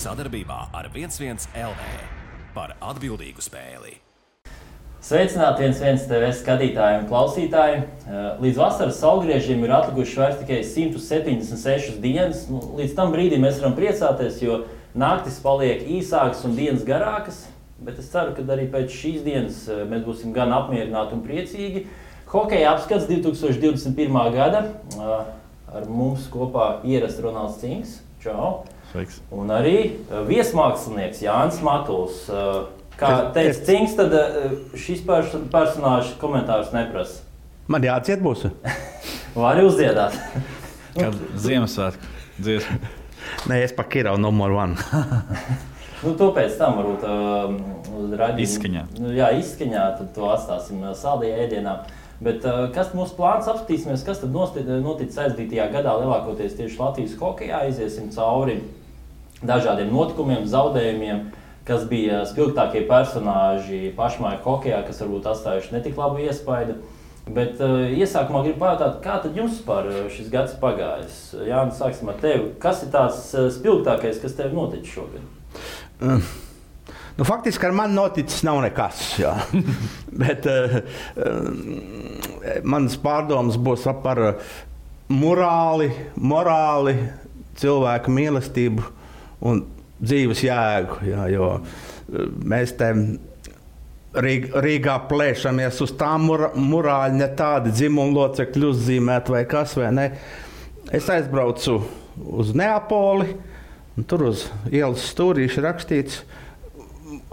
sadarbībā ar 11 LV par atbildīgu spēli. Sveicināti 11 TV skatītāji un klausītāji. Līdz vasaras saulgriežiem ir atlikušas vairs tikai 176 dienas. Līdz tam brīdim mēs varam priecāties, jo naktis paliek īsākas un dienas garākas. Bet es ceru, ka arī pēc šīs dienas mēs būsim gan apmierināti un priecīgi. Hokeja apskats 2021. gada. Ar mums kopā ierasts Ronalds Cinks. Čau! Sveiks! Un arī viesmākslinieks Jānis Matuls. Kā teica Cinks, tad šis personāžs komentārus neprasa. Man jāciet būs. Vari uzdziedāt. Kad Ziemassvētku dziesmu. Nē, es pa Kirau numur 1. To pēc tam varbūt uz raidījumu. Izskaņā. Jā, izskaņā, tad to atstāsim saldajā ēdienā. Bet kas mūsu plāns apskatīsimies, kas tad noticis aizdītajā gadā lielākoties tieši Latvijas hokejā. Iziesim cauri dažādiem notikumiem, zaudējumiem, kas bija spilgtākie personāži pašmāju hokejā, kas varbūt atstājuši netik labu iespaidu. Bet iesākumā gribu pajautāt, kā tad jums par šis gads pagājis? Jānis, sāksim ar tevi. Kas ir tās spilgtākais, kas tev noticis šogad? Faktiski ar mani noticis nav nekas. Bet manas pārdomas būs par morāli, cilvēku mīlestību un dzīves jēgu, jo mēs te Rīgā plēšamies uz tām morāļi, ne tādi dzimumlocekļi uzzīmēt vai kas, vai ne. Es aizbraucu uz Neapoli, un tur uz ielas stūrīši rakstīts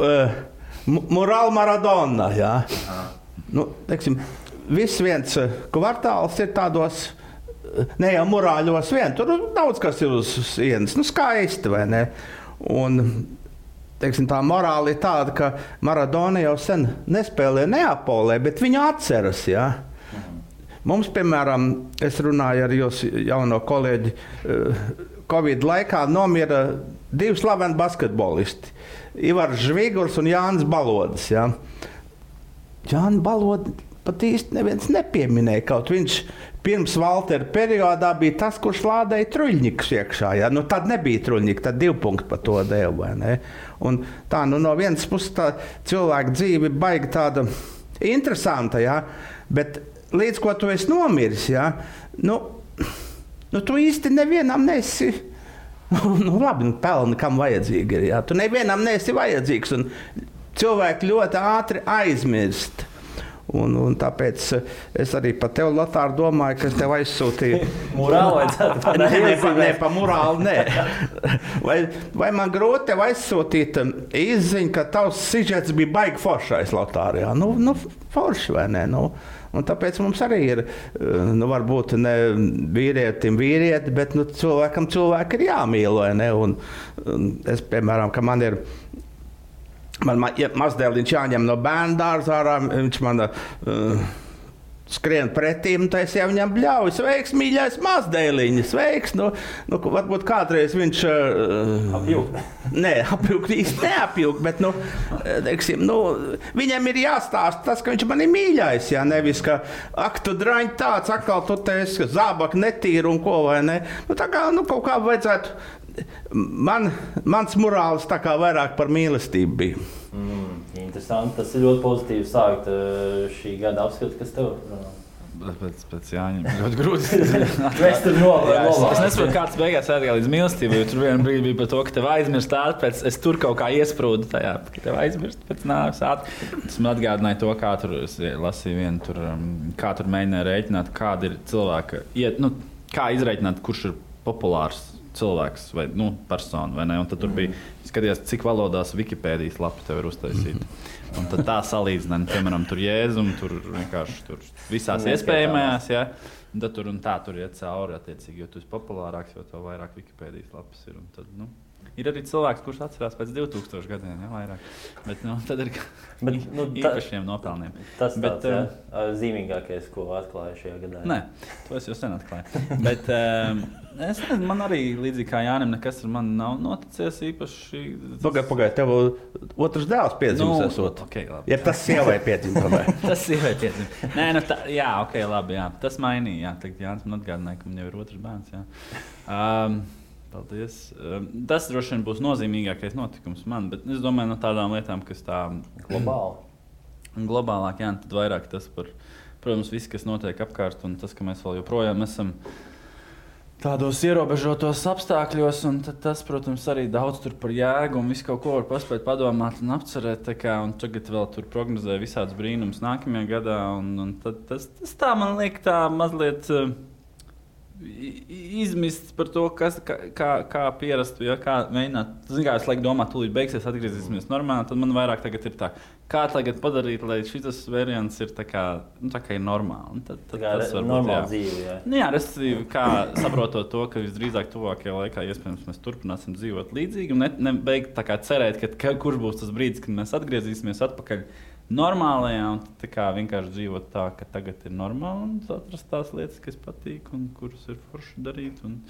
Morāla Maradona, jā. Teiksim, viss viens kvartāls ir tādos, ne jau morāļos vien, tur daudz kas ir uz sienas, skaisti, vai ne. Un, teiksim, tā morāla ir tāda, ka Maradona jau sen nespēlē Neapolē, bet viņu atceras, jā. Mums, piemēram, es runāju ar jūsu jauno kolēģi, Covid laikā nomira 2 slaveni basketbolisti, Ivars Žvigurs un Jānis Balodis, jā. Jānis Balodis pat īsti neviens nepieminēja, kaut viņš pirms Valtera periodā bija tas, kurš lādēja Truļņikus iekšā. Ja? Tad nebija Truļņika, tad 2 punkti par to deva. Vai ne? Un tā, no vienas puses tā cilvēka dzīve baigi tāda interesanta, ja? Bet līdz ko tu esi nomiris, ja? Tu īsti nevienam nesi, labi, pelni kam vajadzīgi ir. Ja? Tu nevienam nesi vajadzīgs un cilvēki ļoti ātri aizmirst. Un tāpēc es arī par tevi, Lotār, domāju, ka es tev aizsūtīju. Morāli vajadzētu? Nē, pa morāli, nē. Vai man grūti tev aizsūtīt izziņu, ka tavs sižets bija baigi foršais, Lotār, jā? Forši, vai ne? Un tāpēc mums arī ir, varbūt ne vīrietim vīrieti, bet cilvēki ir jāmīl, vai ne? Un es, piemēram, ka man ir mazdēliņš jāņem no bērnu dārza ārā, viņš man skrien pretī, un es jau viņam bļauju, sveiks, mīļais mazdēliņš, sveiks, varbūt kādreiz viņš apjūk. Nē, apjūk īsti neapjūk, bet, teiksim, viņam ir jāstāst tas, ka viņš man ir mīļais, jā, nevis, ka, tu draņ tāds, atkal tu teisi, ka zābak netīri un ko, vai ne, tā kā, kaut kā vajadzētu. Mans morāls tā kā vairāk par mīlestību bija. Interesanti. Tas ir ļoti pozitīvi sākt šī gada apskatu, kas tev? Pēc Jāņiem ļoti grūti. Es nesaprotu, kāds beigās aizgāja līdz mīlestībai, jo tur vienā brīdī bija par to, ka tev aizmirst ātri, es tur kaut kā iesprūdu tajā, ka tev aizmirst pēc nāves ātri. Tas man atgādināja to, kā tur, es lasīju vienu, kā tur mēģināja rēķināt, kāda ir cilvēka, kā izrēķināt, kurš ir populārs cilvēks vai persona, vai ne? Un tad tur bija skatījās, cik valodās Wikipēdijas lapa tev ir uztaisīta. Un tad tā salīdzināja, piemēram, tur Jēzum, tur vienkārši tur visās iespējamajās, ja? Un tad tur iet cauri, attiecīgi, jo tu esi populārāks, jo tev vairāk Wikipēdijas lapas ir. Un tad, ir arī cilvēks, kurš atcerās pēc 2000 gadiem, ja, vairāk. Bet, tad ir īpašiem nopelniem. Tas tāds, zīmīgākais, ko atklāja šajā gadā. Nē, to es jau sen atklāju. Bet es nezinu, man arī līdzīgi kā Jānim nekas ar mani nav noticies īpaši. Pagaid, tev otrs dēls piedzimis esot. Okay, labi. Ja tas sievai piedzima. Tas sievai piedzima. Nē, jā, ok, labi, jā. Tas mainīja, jā. Tagad Jānis man atgādināja, ka man jau ir otrs bērns, jā. Paldies. Tas droši vien būs nozīmīgākais notikums man, bet es domāju, no tādām lietām, kas tā globālāk, jā, tad vairāk tas par, protams, viss, kas notiek apkārt, un tas, ka mēs vēl joprojām esam tādos ierobežotos apstākļos, un tas, protams, arī daudz tur par jēgu un visu kaut ko var paspēt padomāt un apcerēt, un tagad vēl tur prognozē visāds brīnums nākamajā gadā, un tad tas tā man liek tā mazliet izmists par to, kā pierastu, ja, kā mēģināt. Zin kā, es laiku domāju, tūlīt beigsies, atgriezīsimies normāli, tad man vairāk tagad ir tā, kā tagad padarīt, lai šis variants ir tā kā ir normāli. Tad tas var būt dzīve, jā. Nu, jā, respektīvi, kā saprotot to, ka visdrīzāk tuvākajā laikā iespējams mēs turpināsim dzīvot līdzīgi un nebeigt tā kā cerēt, ka kurš būs tas brīdis, kad mēs atgriezīsimies atpakaļ normālajā un tā kā vienkārši dzīvot tā, ka tagad ir normāli un atrast tās lietas, kas patīk un kuras ir forši darīt. Un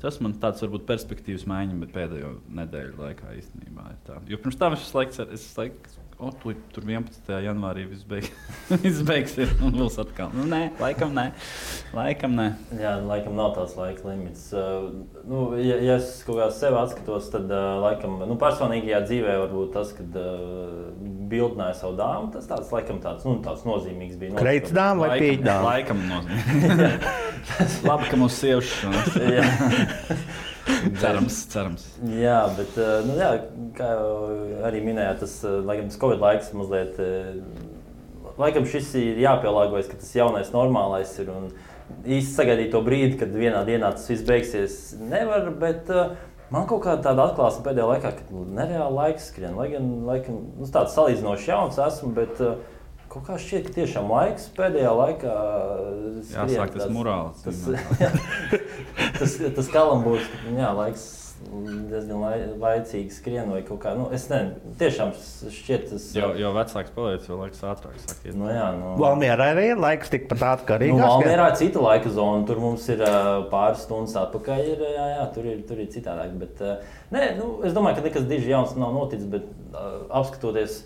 tas man tāds varbūt perspektīvas maiņa, bet pēdējo nedēļu laikā īstenībā ir tā. Jo pirms tam es laiks, tur 11. janvārī viss beigsies un būs atkal. Nu, nē, laikam nē. Jā, laikam nav tāds laika limits. Ja es kaut kā sevi atskatos, tad laikam, personīgajā dzīvē varbūt tas, kad bildināja savu dāmu, tas tāds nozīmīgs bija. Kreits dāma vai pīķa dāma? Laikam nozīmīgs. Labi, ka mūsu sievšas. Cerams. Jā, bet, kā jau arī minējāt, tas Covid laiks mazliet, laikam šis ir jāpielāgojas, ka tas jaunais normālais ir un īsti sagaidīt to brīdi, kad vienā dienā tas viss beigsies nevar, bet man kaut kāda tāda atklāsme pēdējā laikā, ka nereāli laiks skrien, lai gan tāds salīdzinoši jauns esmu, bet kaut kā šķiet, ka tiešām laiks pēdējā laikā skrien. Jāsāk tas morāls. Tas kalambūs, ka laiks diezgan laicīgi skrien vai kaut kā. Es nezinu, tiešām šķiet tas... Jo vecāks paliec, jo laiks ātrāk sāk iet. Valmierā arī ir laiks tikpat ātri kā Rīgā. Valmierā ir cita laika zona, tur mums ir pāris stundas atpakaļ, tur ir citādāk. Bet, es domāju, ka nekas diži jauns nav noticis, bet apskatoties,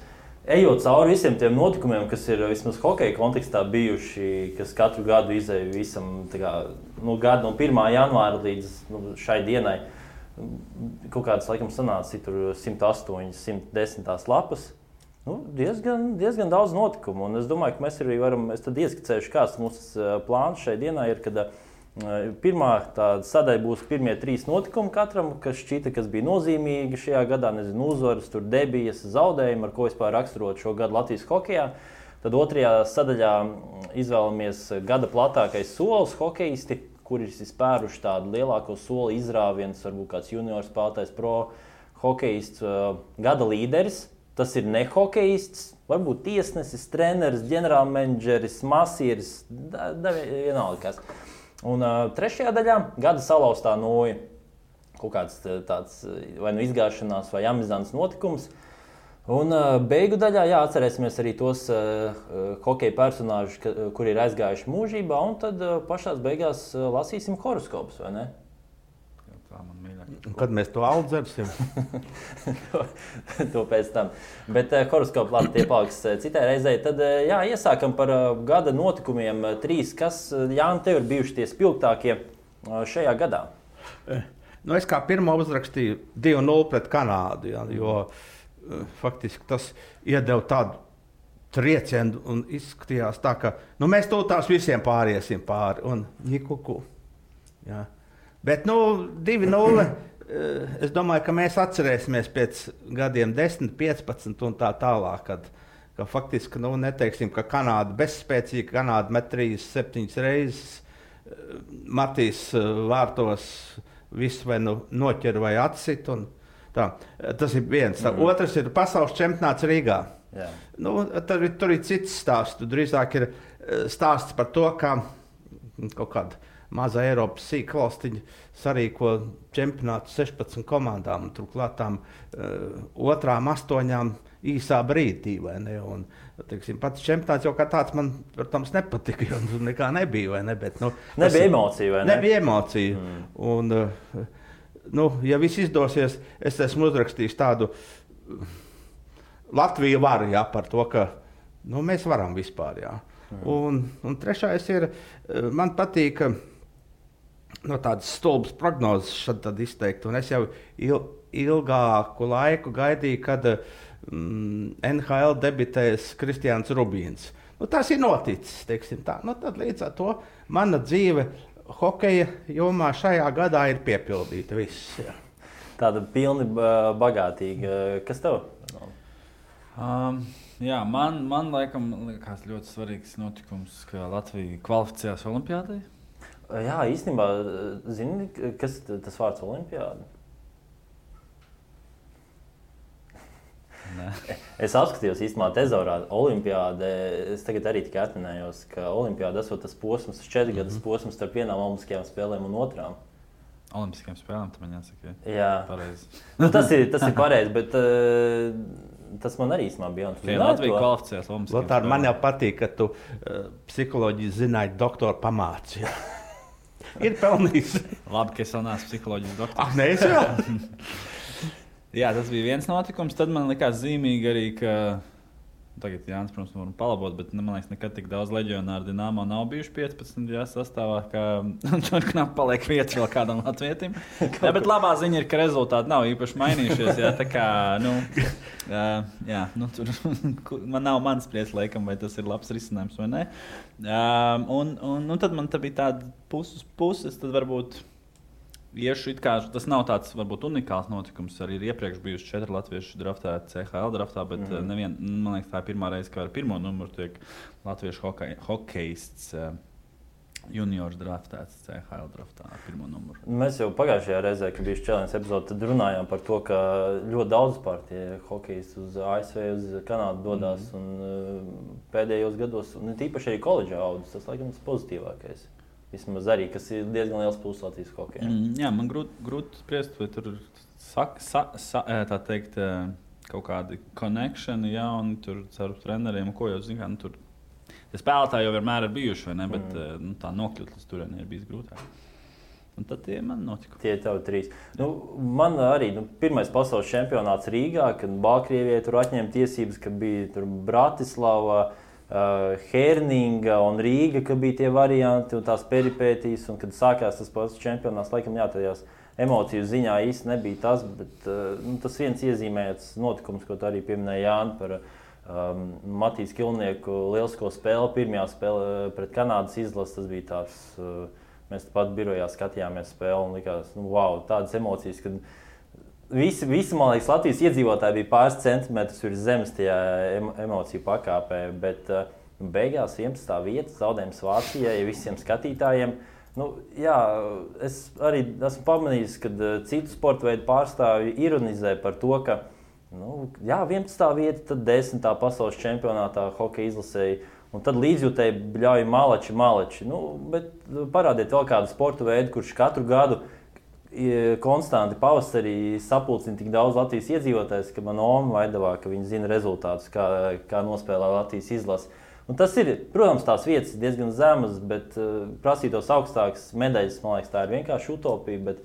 ejot cauri visiem tiem notikumiem, kas ir vismaz hokeja kontekstā bijuši, kas katru gadu izēja visam gadu no 1. janvāra līdz šai dienai, kaut kādas laikam sanāca tur 108, 110 lapas. Diezgan daudz notikumu, un es domāju, ka mēs arī varam, es tad ieskicējuši, kāds mūsu plāns šai dienai ir, kad pirmā tāda sadaļa būs pirmie 3 notikumi katram, kas šķita, kas bija nozīmīgi šajā gadā, uzvaras, tur debijas, zaudējumi, ar ko vispār raksturot šo gadu Latvijas hokejā. Tad otrajā sadaļā izvēlamies gada platākais solis hokejisti, kuri ir spēruši tādu lielāko soli izrāvienus, varbūt kāds juniors spēlētājs, pro hokejists, gada līderis. Tas ir ne hokejists, varbūt tiesnesis, treneris, ģenerālmenedžeris, masieris, vienalga kas. Un trešajā daļā gada salauztā noja, kaut kāds tāds vai izgāšanās vai amizants notikums. Un beigu daļā atcerēsimies arī tos hokeja personāžus, kuri ir aizgājuši mūžībā, un tad pašās beigās lasīsim horoskopus, vai ne? Tā man mīļāk. Kad mēs to audzersim? To pēc tam. Bet horoskopu labi tie paliks citai reizei. Tad iesākam par gada notikumiem 3, kas, Jāni, tev ir bijuši tie spilgtākie šajā gadā? Es kā pirmo uzrakstīju 2-0 pret Kanādu, jo faktiski tas iedeva tādu triecienu un izskatījās tā, ka mēs tās visiem pāriesim pāri un nikuku. Jā. Bet 2-0, es domāju, ka mēs atcerēsimies pēc gadiem 10, 15 un tā tālāk, ka faktiski neteiksim, ka Kanāda bezspēcīga, Kanāda met 3-7 reizes, Matīs vārtos visu vai noķer vai atsit. Tas ir viens. Otrs ir pasaules čempionāts Rīgā. Tur ir cits stāsts. Drīzāk ir stāsts par to, kā kaut kāda maza Eiropas sīka valstiņa sarīko čempionātu 16 komandām, un turklāt tām otrām 8 īsā brīdī. Un, pats čempionāts jau kā tāds man, protams, nepatika, jo nekā nebija. Vai ne? Bet, nebija emocija, vai ne? Nebija emocija. Un, ja viss izdosies, es esmu uzrakstījis tādu Latviju varu par to, ka mēs varam vispār. Un trešais ir, man patīk no tādas stulbas prognozes tad izteikt. Un es jau ilgāku laiku gaidīju, kad NHL debitēs Kristiāns Rubīns. Nu, tas ir noticis, teiksim tā. Nu, tad līdz ar to mana dzīve hokeja jomā šajā gadā ir piepildīta viss. Jā. Tāda pilni bagātīga. Kas tev? Jā, man laikam liekas ļoti svarīgs notikums, ka Latvija kvalificējās olimpiādai. Jā, īstenībā, zini, kas tas vārds olimpiāda? Nē. Es apskatījos īstenībā tezorā olimpiāde. Es tagad arī tikai atminējos, ka olimpiāda esot tas posms, 4 gadus posms starp vienām olimpiskajām spēlēm un otrām. Olimpiskajām spēlēm, tam man jāsaka. Jā. Pareizi. Nu, tas ir pareizi, bet tas man arī īstenībā bija. Latvija kvalificējās olimpiskajām spēlēm. Lotār, man jau patīk, ka tu psiholoģiju zināji doktoru pamāci. Ir pelnījis. Labi, ka es vēl neesmu psiholoģijas doktors. Nē, es vēl. Jā, tas bija viens notikums. Tad man likās zīmīgi arī, ka tagad Jānis, protams, varam palabot, bet man liekas, nekad tik daudz leģionāru Dinamo nav bijuši 15 sastāvā, ka tur knap paliek vietas vēl kādam latvietim. Jā, bet labā ziņa ir, ka rezultāti nav īpaši mainījušies. Jā, tā kā, tur man nav mans spriedz, laikam, vai tas ir labs risinājums vai nē. Un tad man bija tāda puses, tad varbūt iešu it kā, tas nav tāds varbūt unikāls notikums. Arī ir iepriekš bijuši 4 latviešu draftēti CHL draftā, bet man liekas, tā ir pirmā reize, ka ar pirmo numuru tiek latviešu hokejists juniors draftēts CHL draftā ar pirmo numuru. Mēs jau pagājušajā reizē, kad bija Challenge epizode, tad runājām par to, ka ļoti daudz pārtie hokejisti uz ASV, uz Kanādu dodās un pēdējos gados, un tīpaši arī koledžā audzes, tas laikam tas pozitīvākais. Vismaz arī, kas ir diezgan liels pluss Latvijas hokejā. Jā, man grūti spriest, vai tur tā teikt, kaut kādi konekšani, ja, un tur ar treneriem, ko jau zina, tur spēlētāji jau vienmēr ir bijuši, vai ne, bet tā nokļūt līdz turienei ir bijis grūtāk. Un tad tie man notika. Tie tev 3. Man arī pirmais pasaules čempionāts Rīgā, kad Baltkrievijai tur atņēma tiesības, ka bija tur Bratislava, Herninga un Rīga, ka bija tie varianti un tās peripētīs, un kad sākās tas pats čempionāts, laikam tajās emociju ziņā īsti nebija tas, bet tas viens iezīmēts notikums, ko tu arī pieminēji, Jāni, par Matīs Kilnieku lielisko spēli, pirmajā spēle pret Kanādas izlasi, tas bija tāds, mēs pat birojā skatījāmies spēli un likās, wow, tādas emocijas, kad Visi, man liekas, Latvijas iedzīvotāji bija pāris centimetrus virs zemes tajā emociju pakāpē, bet beigās 11. vieta zaudējums Vācijai visiem skatītājiem. Jā, es arī esmu pamanījis, ka citu sporta veidu pārstāvji ironizē par to, ka 11. vieta, tad 10. pasaules čempionātā hokeja izlasēji, un tad līdzjūtēji bļauj malači. Bet parādiet vēl kādu sporta veidu, kurš katru gadu konstanti pavasarī sapulcina tik daudz Latvijas iedzīvotājs, ka man Oma vaidavā, ka viņi zina rezultātus, kā nospēlē Latvijas izlase. Un tas ir, protams, tās vietas diezgan zemas, bet prasītos augstākas medaļas, man liekas, tā ir vienkārši utopija, bet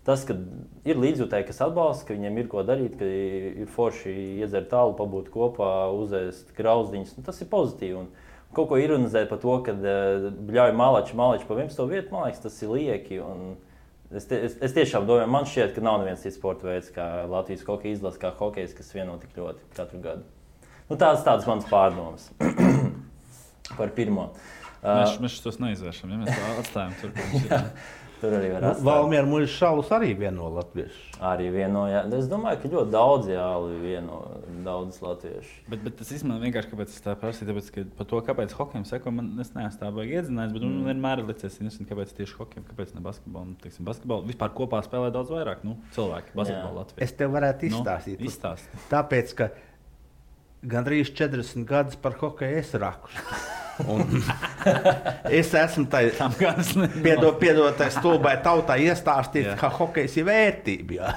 tas, ka ir līdzjūtēji, kas atbalsta, ka viņiem ir ko darīt, ka ir forši iedzert tālu, pabūt kopā, uzēst grauzdiņas, tas ir pozitīvi. Un kaut ko ironizēt par to, ka bļauj malači pa 11. vietu, man liekas, tas ir lieki. Un Es tiešām domāju, man šķiet, ka nav neviens cits sporta veids, kā Latvijas hokeja izlase, kā hokejs, kas vieno tik ļoti katru gadu. Tādas manas pārdomas par pirmo. Mēs tos neizvēršam, ja mēs to atstājam tur. Tur arī var atstāt. Valmiera Muļas šaulus arī vieno latviešu. Arī vieno, jā. Es domāju, ka ļoti daudz vieno daudz latviešu. Bet tas īstenībā vienkārši, kāpēc es tā prasīju, tāpēc, ka par to, kāpēc hokejam seko, es neesmu tā baigi iedzinājis, bet vienmēr ir licies, kāpēc tieši hokejam, kāpēc ne basketbolu. Teiksim, basketbolu vispār kopā spēlē daudz vairāk cilvēki basketbolu Latvijā. Es tev varētu izstāstīt. Tāpēc, ka gandrīz 40 gadus par hokeju es raku. Es esmu piedotājs stulbai tautai iestāstīt, ka hokejs ir vērtība.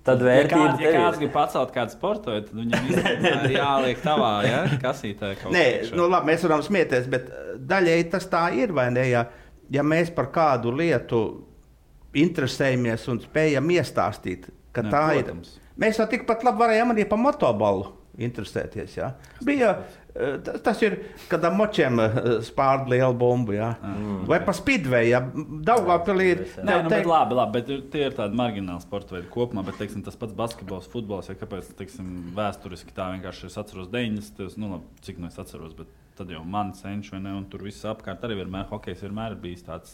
Tad vērtība ja kāds grib pacelt kādu sportu, tad viņam ir jāliek tavā kasītē kaut Nē, labi, mēs varam smieties, bet daļēji tas tā ir, vai ne? Ja mēs par kādu lietu interesējamies un spējam iestāstīt, ka tā protams. Ir. Mēs jau tikpat labi varējām arī par motobolu interesēties. Jā. Bija, tas ir, kad ar močiem spārda liela bumba. Jā. Vai pa Speedway, ja Daugavpilī ir... Nē, bet labi, bet tie ir tādi margināli sporta veidi kopumā, bet teiksim, tas pats basketbols, futbols, ja kāpēc teiksim, vēsturiski tā vienkārši es atceros 90. Nu, labi, cik nu es atceros, bet tad jau man cenš, vai ne, un tur viss apkārt arī vienmēr, hokejs vienmēr ir bijis tāds,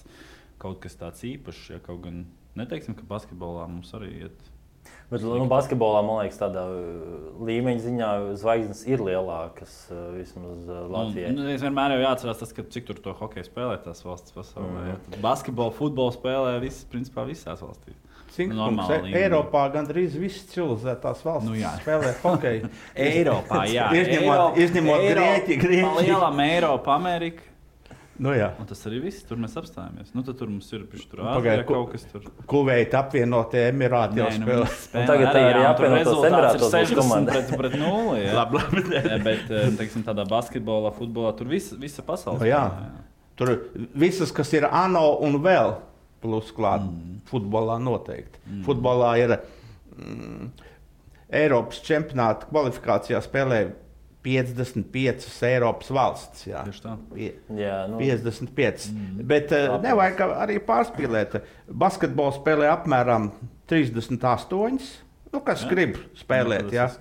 kaut kas tāds īpašs, ja kaut gan neteiksim, ka basketbolā mums arī iet. Bet basketbolā, man liekas, tādā līmeņa ziņā zvaigznes ir lielākas vismaz Latvijai. Es vienmēr jau jāatcerās tas, ka cik tur to hokeju spēlē tās valsts pasaulē. Ja? Basketbolu, futbolu spēlē principā visās valstīs. Eiropā gandrīz visas civilizētās valstis spēlē hokeju. Eiropā, jā. Izņemot Grieķiju. Lielam Eiropa, Amerika. Nu, jā. Un tas arī viss, tur mēs apstājamies. Nu, tad tur mums ir tur Āzijā kaut kas tur. Kuveita apvienotie Emirāti jau spēlē. Tagad tā arī apvienotos Emirātos būs komanda. Pret 0, jā. Labi. Bet, teiksim, tādā basketbolā, futbolā, tur visa pasaule. Jā. Tur visas, kas ir ANO un vēl plus klāt, futbolā noteikti. Futbolā ir Eiropas čempionāta kvalifikācijā spēlē 55 Eiropas valsts. Jā. Tieši tā. 55. Bet nevajag arī pārspīlēt. Basketbolu spēlē apmēram 38. Nu, kas grib spēlēt. Jā.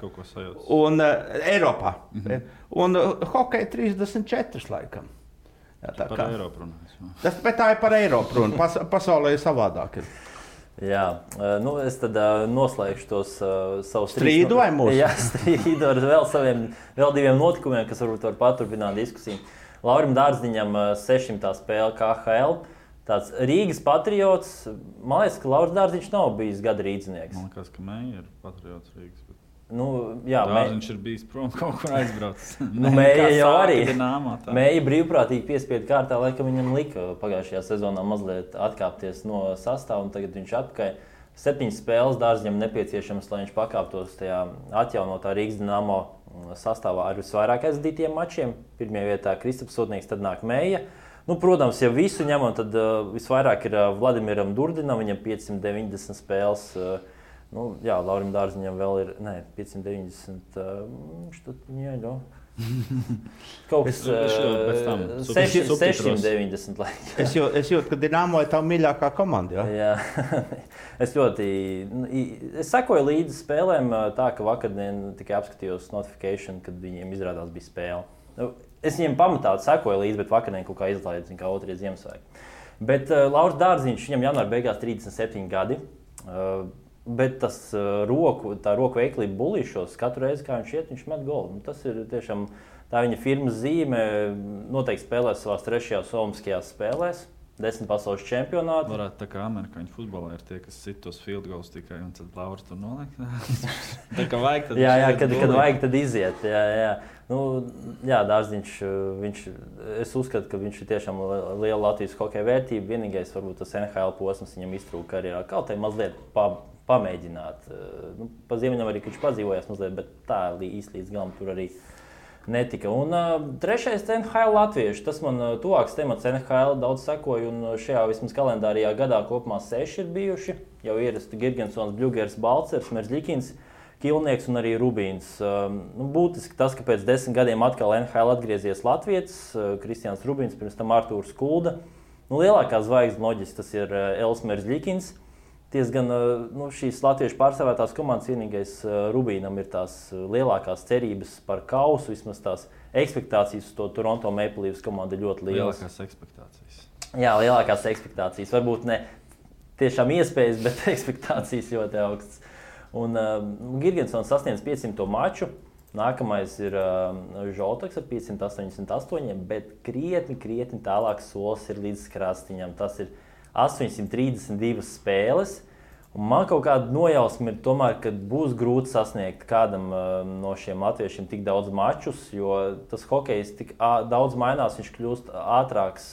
Un Eiropā. Un hokeja 34 laikam. Jā, tā par Eiropu runājot. Bet tā ir par Eiropu runa. Pasaulē ir savādāk. Jā, nu es tad noslēgšu tos savus strīdu vai mūsu? Jā, strīdu ar vēl diviem notikumiem, kas varbūt var paturpināt diskusiju. Laurim Dārziņam 600. spēle KHL. Tāds Rīgas patriots. Man liekas, ka Lauris Dārziņš nav bijis gada rīdzinieks. Man liekas, ka Meija ir patriots Rīgas. Nu, jā, Dārziņš ir bijis prom kaut kur aizbraucis. Meija jau arī. Meija brīvprātīgi piespiedu kārtā, laikam viņam lika pagājušajā sezonā mazliet atkāpties no sastāva, un tagad viņš atpakaļ. 7 spēles Dārziņam nepieciešams, lai viņš pakāptos tajā atjaunotā Rīgas Dinamo sastāvā ar visvairāk aizdītiem mačiem. Pirmajā vietā Kristaps Sotnieks, tad nāk Meija. Nu, protams, ja visu ņemam, tad visvairāk ir Vladimiram Durdinam, viņam 590 spēles. Nu, jā, Laurim Dārziņam vēl ir 590. Kaut kas 690. Es jūtu, ka Dinamo ir tā mīļākā komanda. Jā. Es sekoju līdzi spēlēm tā, ka vakardien tikai apskatījos notification, kad viņiem izrādās bija spēle. Es viņiem pamatā sekoju līdzi, bet vakardien kaut kā izlaidu, kā otrie Ziemassvētki. Bet Lauris Dārziņš, viņam janvāra beigās 37 gadi. Bet tā roku veiklība bulīšos, katru reizi, kā viņš iet, viņš met golu. Nu, tas ir tiešām tā viņa firmas zīme. Noteikti spēlēs savās 3. olimpiskajās spēlēs, 10 pasaules čempionāti. Varētu tā kā amerikāņu futbolā ir tie, kas sit tos field goals tikai, un tad Lauris tur noliek. Tā kā vajag, tad jā, kad vajag, tad iziet. Jā. Nu, jā, Dārziņš, es uzskatu, ka viņš ir tiešām liela Latvijas hokeja vērtība. Vienīgais, varbūt tas NHL posms viņam iztrūka karjerā. Kaut arī mazliet pamēģināt. Nu, pa Ziemeļameriku viņš padzīvojās mazliet, bet tā īsti līdz galam tur arī netika. Un trešais NHL latvieši. Tas man tuvāks temats NHL daudz sekoju, un šajā vismaz kalendārijā gadā kopumā 6 ir bijuši. Jau ierasti Girgensons, Bļugers, Balcers, Merzļikins, Kilnieks un arī Rubīns. Nu, būtiski tas, ka pēc 10 gadiem atkal NHL atgriezies latvietis, Kristians Rubīns, pirms tam Artūrs Kulda. Nu, lielākā zvaigzne loģiski tas ir Els Merzļikins. Tiesgan šīs latviešu pārstāvētās komandas vienīgais Rubīnam ir tās lielākās cerības par kausu, vismaz tās ekspektācijas uz to Toronto Maple Leafs komandu ļoti lielas. Lielākās ekspektācijas. Jā, lielākās ekspektācijas. Varbūt ne tiešām iespējas, bet ekspektācijas ļoti augstas. Un Girgensons sasniedz 500. maču. Nākamais ir Žoltaks ar 588, bet krietni tālāks solis ir līdz Krastiņam. Tas ir 832 spēles. Un man kaut kāda nojausma ir tomēr, ka būs grūti sasniegt kādam no šiem latviešiem tik daudz mačus, jo tas hokejs tik daudz mainās, viņš kļūst ātrāks,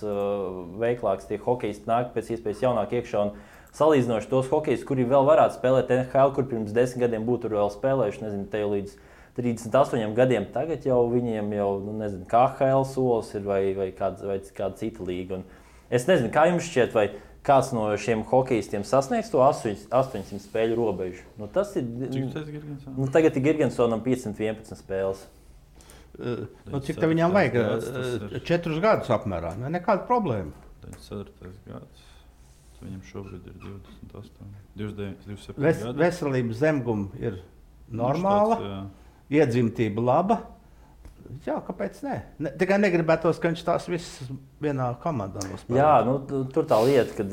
veiklāks, tie hokejisti nāk pēc iespējas jaunāk iekšā. Un salīdzinoši tos hokejus, kuri vēl varētu spēlēt NHL, kur pirms 10 gadiem būtu vēl spēlējuši, nezinu, te jau līdz 38 gadiem, tagad jau viņiem jau, nezinu, KHL solis ir vai kāda cita līga. Un es nezinu, kā jums šķiet, vai kāds no šiem hokeistiem sasniegs to 800 spēļu robežu. Nu, tas ir. Cik tas ir Girgensonam? Nu, tagad ir Girgensonam 511 spēles. Cik tev viņam vajag? 4 gadus apmērā. Nekāda problēma. 4. gads. Viņam šobrīd ir 28, 27 gadi. Veselības zemguma ir normāla, iedzimtība laba. Jā, kāpēc ne? Tikai negribētos, ka viņš tās visas vienā komandā nospēlē. Jā, nu, tur tā lieta, kad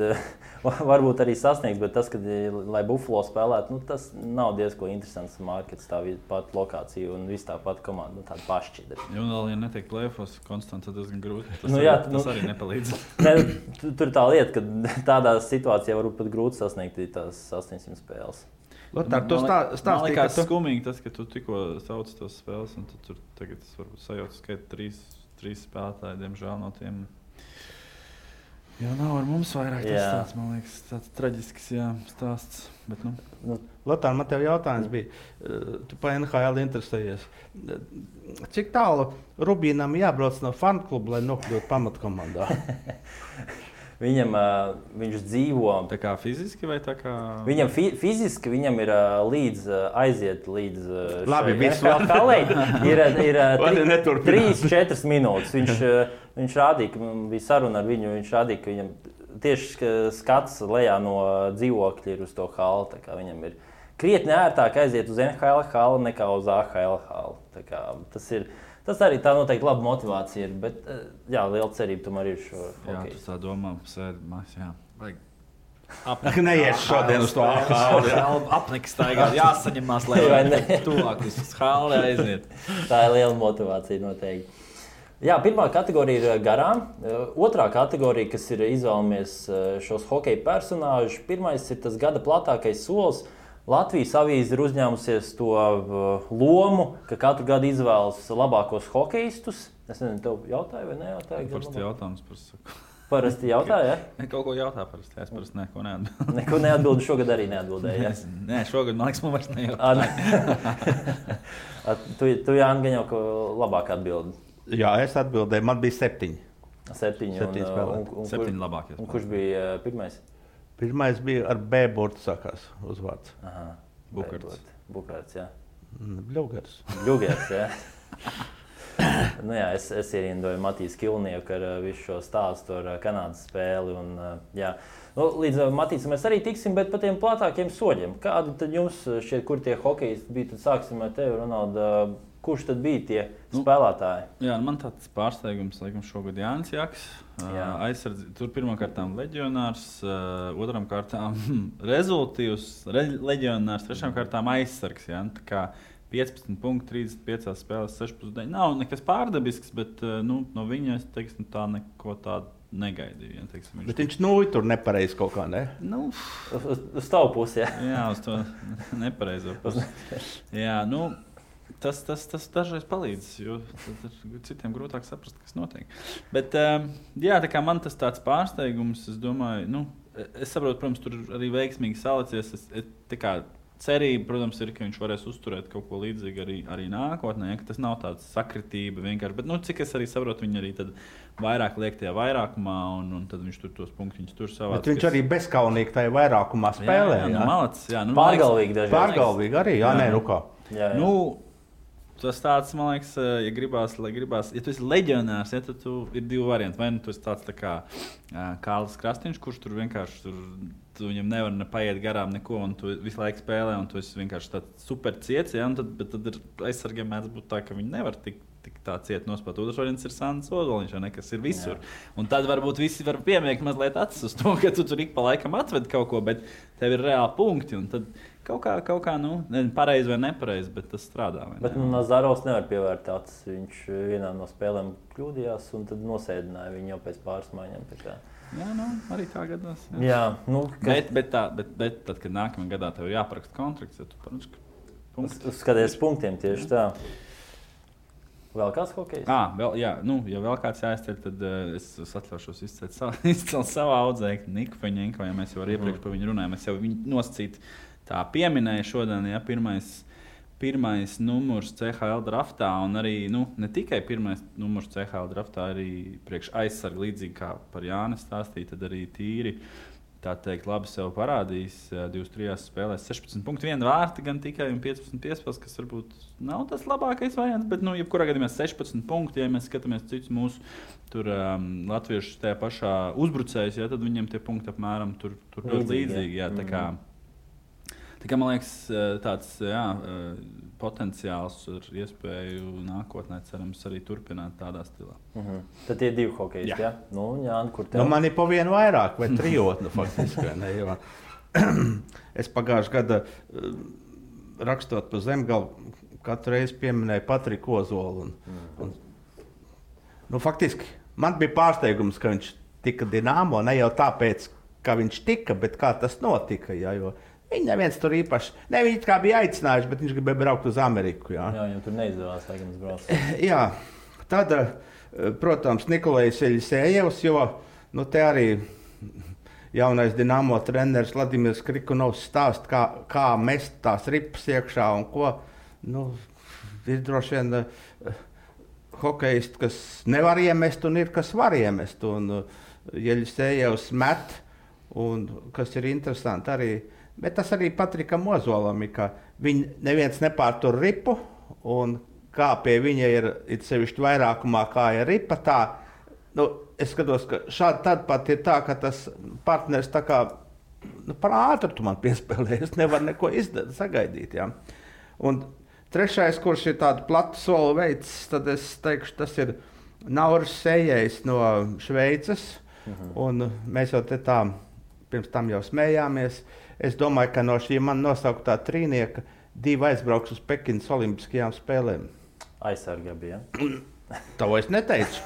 varbūt arī sasniegs, bet tas, kad, lai Buffalo spēlētu, nu, tas nav diezko interesants markets, tā pat lokācija un viss tā pat komanda, nu, tāda pašķidra. Ja vēl, ja netiek play-offos konstanti, tad diezgan grūti. Tas arī nepalīdz. Ne, tur tā lieta, ka tādā situācijā varbūt pat grūti sasniegt tās 800 spēles. Lotār, man liekas skumīgi tas, ka tu tikko sauc tos spēles, un tur tagad es varbūt sajaucu skaitu 3 spēlētāji, diemžēl no tiem. Jā, nav ar mums vairāk tas tāds, man liekas, tāds traģisks stāsts. Bet, nu. Lotār, man tev jautājums bija, tu pa NHL interesējies. Cik tālu Rubīnam jābrauc no fankluba, lai nokļūtu pamatkomandā? Viņš dzīvo. Tā kā fiziski vai tā kā? Viņam fiziski viņam ir aiziet līdz šai ir 3-4 minūtes. Viņš rādīja, ka bija saruna ar viņu, viņš rādīja, ka viņam tieši skats lejā no dzīvokļa ir uz to halu. Tā kā viņam ir krietni ērtāk aiziet uz NHL halu nekā uz AHL halu. Tā kā tas arī tā noteikti laba motivācija ir, bet jā, liela cerība tomēr ir šo hokeju. Jā, tu tā domā, sēdamās, jā. Vajag neies šodien uz to halu. Apniks taigā, jāsaņemās, lai tuvāk uz halu aiziet. Tā ir liela motivācija noteikti. Jā, pirmā kategorija ir garām. Otrā kategorija, kas ir izvēlamies šos hokeja personāžus, pirmais ir tas gada platākais solis. Latvijas avīze ir uzņēmusies to lomu, ka katru gadu izvēlas labākos hokeistus. Es nezinu, tev jautāju vai nejautāju? Parasti jautājums par saku. Parasti jautāju, ja? Ne, kaut ko jautā parasti. Es parasti neko neatbildu. Neko neatbildu, šogad arī neatbildēju, ja? Nē, šogad, man liekas, man vairs nejautāju. Tu Jāni, gan jau ka labāk atbildi. Jā, es atbildēju. Man bija 7. 7 spēlētāji. 7 labākie. Un kurš bija pirmais? Pirmais bija ar B burtu sākās uzvārds. Bukarts, jā. Bļugers. Bļugers, jā. Nu jā, es ierindoju Matīs Kilnieku ar visu šo stāstu ar Kanādas spēli. Un, jā. Nu, līdz Matīsam mēs arī tiksim, bet par tiem platākiem soļiem. Kādi tad jums šķiet, kur tie hokejisti bija? Tad sāksim ar tevi, Ronalda. Kurš tad bija tie spēlētāji? Jā, man tāds pārsteigums, laikam, šogad Jānis Jaks. Tur pirmkārtām leģionārs, otram kārtām rezultīvs leģionārs, trešām kārtām aizsargs. Jā. Tā kā 15 punkti, 35 spēlēs, 6,9. Nav nekas pārdabisks, bet no viņa es teiksim, tā neko tādu negaidīju. Ja, teiksim, bet viņš tur nepareizi kaut kā, ne? Uz tavu pusi, jā. Jā, uz to nepareizo pusi. Jā, Tas dažreiz palīdz, jo citiem grūtāk saprast, kas notiek. Bet, jā, tā kā man tas tāds pārsteigums, es domāju, es saprotu, protams, tur arī veiksmīgi salicies. Cerība, protams, ir, ka viņš varēs uzturēt kaut ko līdzīgu arī nākotnē, ja, ka tas nav tāds sakritība vienkārši. Bet, cik es arī saprotu, viņi arī tad vairāk liek tajā vairākumā, un tad viņš tur tos punktiņus tur savāc. Bet viņš arī bezkaunīgi tajā vairākumā spēlē. Jā, malacis, jā. Pārgalvīgi dažreiz. Pārgalvīgi arī, jā, nē, kā. Jā. Tas tāds, man liekas, ja gribās, ja tu esi leģionārs, ja, tad ir 2 varianti. Vai tu esi tāds tā kā Kārlis Krastīņš, kurš tur vienkārši tu viņam nevar paiet garām neko, un tu visu laiku spēlē, un tu esi vienkārši tāds super ciets, ja, bet tad ir aizsargiem mēdz būt tā, ka viņi nevar tik tā ciet nospēt. Otrs variants ir Sandis Ozoliņš, kas ir visur. Jā. Un tad varbūt visi var piemiegt mazliet acis uz to, ka tu tur ik pa laikam atved kaut ko, bet tev ir reāli punkti, un tad kaut kā pareizi vai nepareizi, bet tas strādā. Bet Nazarovs nevar pievērt acis. Viņš vienā no spēlēm kļūdījās un tad nosēdināja viņu jau pēc pāris maiņām. Jā, arī tā gadās. Jā, bet tad, kad nākamajā gadā tev ir jāparaksta kontrakts, ja tu punktus. Skaties punktiem tieši tā. Vēl kāds hokejs? Ja vēl kāds jāizceļ, tad es atļaušos izcelt savu audzēkni Niku Feņenko, ja mēs jau iepriekš par viņu runājām. Es jau viņu nosacīt tā pieminēju šodien, ja pirmais numurs CHL draftā, un arī ne tikai pirmais numurs CHL draftā, arī priekš aizsarga līdzīgi kā par Jānis stāstīja, tad arī tīri tā teikt, labi sev parādījis 23 spēlēs. 16,1 vārti gan tikai un 15 piespēles, kas varbūt nav tas labākais variants, bet, jebkurā gadījumā 16 punkti, ja mēs skatāmies citus mūsu latviešus tajā pašā uzbrucējus, tad viņiem tie punkti apmēram tur ļoti līdzīgi. Jā, tā kā man liekas, tāds potenciāls ar iespēju nākotnē, cerams, arī turpināt tādā stilā. Tad tie 2 hokejisti, jā? Jāni, kur tev? Man ir pa vienu vairāk, vai trijotni faktiski. Ne, jo es pagājušajā gadā rakstot pa Zemgalu, katru reizi pieminēju Patriku Ozolu. Faktiski man bija pārsteigums, ka viņš tika Dinamo, ne jau tāpēc, ka viņš tika, bet kā tas notika. Jā, jo viņi neviens tur īpaši, viņi kā bija aicinājuši, bet viņš gribēja braukt uz Ameriku. Jā, jau tur neizdevās, laikam, braukt. Jā, tad, protams, Nikolajs Eļisējevs, jo te arī jaunais Dinamo treneris Vladimirs Krikunovs stāsta, kā mest tās ripas iekšā un ko. Ir droši vien hokejisti, kas nevar iemest un ir, kas var iemest. Un Eļisējevs met, un kas ir interesanti arī. Bet tas arī Patrikam Ozolam ir, ka neviens nepārtur ripu, un kā pie viņa ir sevišķi vairākumā, kā ir ripa, tā, es skatos, ka šādi tad pat ir tā, ka tas partners tā kā, par ātru tu man piespēlēji, es nevaru neko sagaidīt, jā. Un trešais, kurš ir tādu platu soli veids, tad es teikšu, tas ir Nauris Sējējs no Šveices, un mēs jau te tā pirms tam jau smējāmies. Es domāju, ka no šī man nosauktā trīnieka 2 aizbrauks uz Pekinas Olimpiskajām spēlēm. Aizsargā bija. To es neteicu.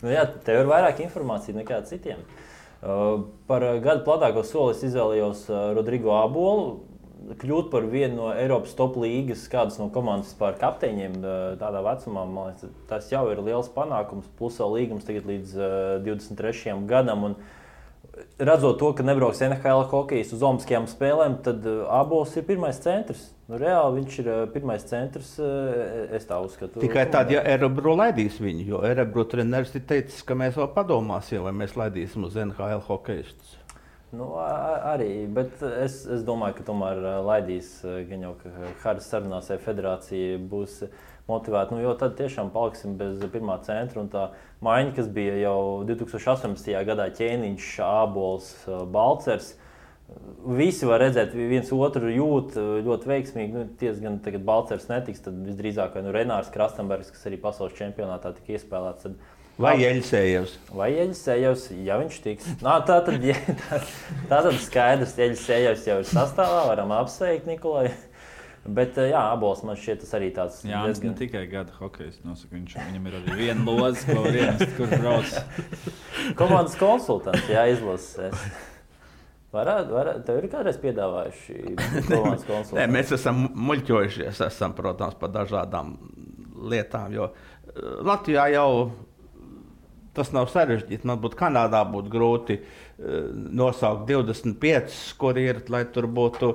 Jā, tev ir vairāk informācija nekā citiem. Par gadu platāko soli es izvēlējos Rodrigo Abolu. Kļūt par vienu no Eiropas top līgas, kādas no komandas vispār kapteiņiem tādā vecumā, man liekas, tas jau ir liels panākums. Plus vēl līgums tagad līdz 23. gadam. Un redzot to, ka nebrauks NHL hokejs uz Olimpiskajām spēlēm, tad Abols ir pirmais centrs. Reāli viņš ir pirmais centrs, es tā uzskatu. Tikai tad, ja Erebro laidīs viņu, jo Erebro treneris ir teicis, ka mēs vēl padomāsim, vai mēs laidīsim uz NHL hokejistus. Arī, bet es domāju, ka tomēr laidīs, gan jau, ka Haras sarunās federācija būs motivēta, jo tad tiešām paliksim bez pirmā centra, un tā maiņa, kas bija jau 2018. Gadā Ķēniņš, Ābols, Balcers, visi var redzēt, viens otru jūt ļoti veiksmīgi, gan tagad Balcers netiks, tad visdrīzāk Renārs Krastenbergs, kas arī pasaules čempionātā tika iespēlēts, tad Vai Eļisējevs? Vai Eļisējevs, ja viņš tiks. Tātad skaidrs, Eļisējevs jau ir sastāvā, varam apsveikt Nikolai. Bet jā, Abols man šķiet tas arī tāds. Jā, diezgan... ne tikai gada hokejs nosaka, viņam ir arī viena loza, ko var iemest, kur brauc. Komandas konsultants, jā, izlases. Tev ir kādreiz piedāvājuši komandas konsultantu? Nē, mēs esam muļķojušies, protams, par dažādām lietām, jo Latvijā jau tas nav sarežģīti. Man būtu Kanādā būtu grūti nosaukt 25, kur ir, lai tur būtu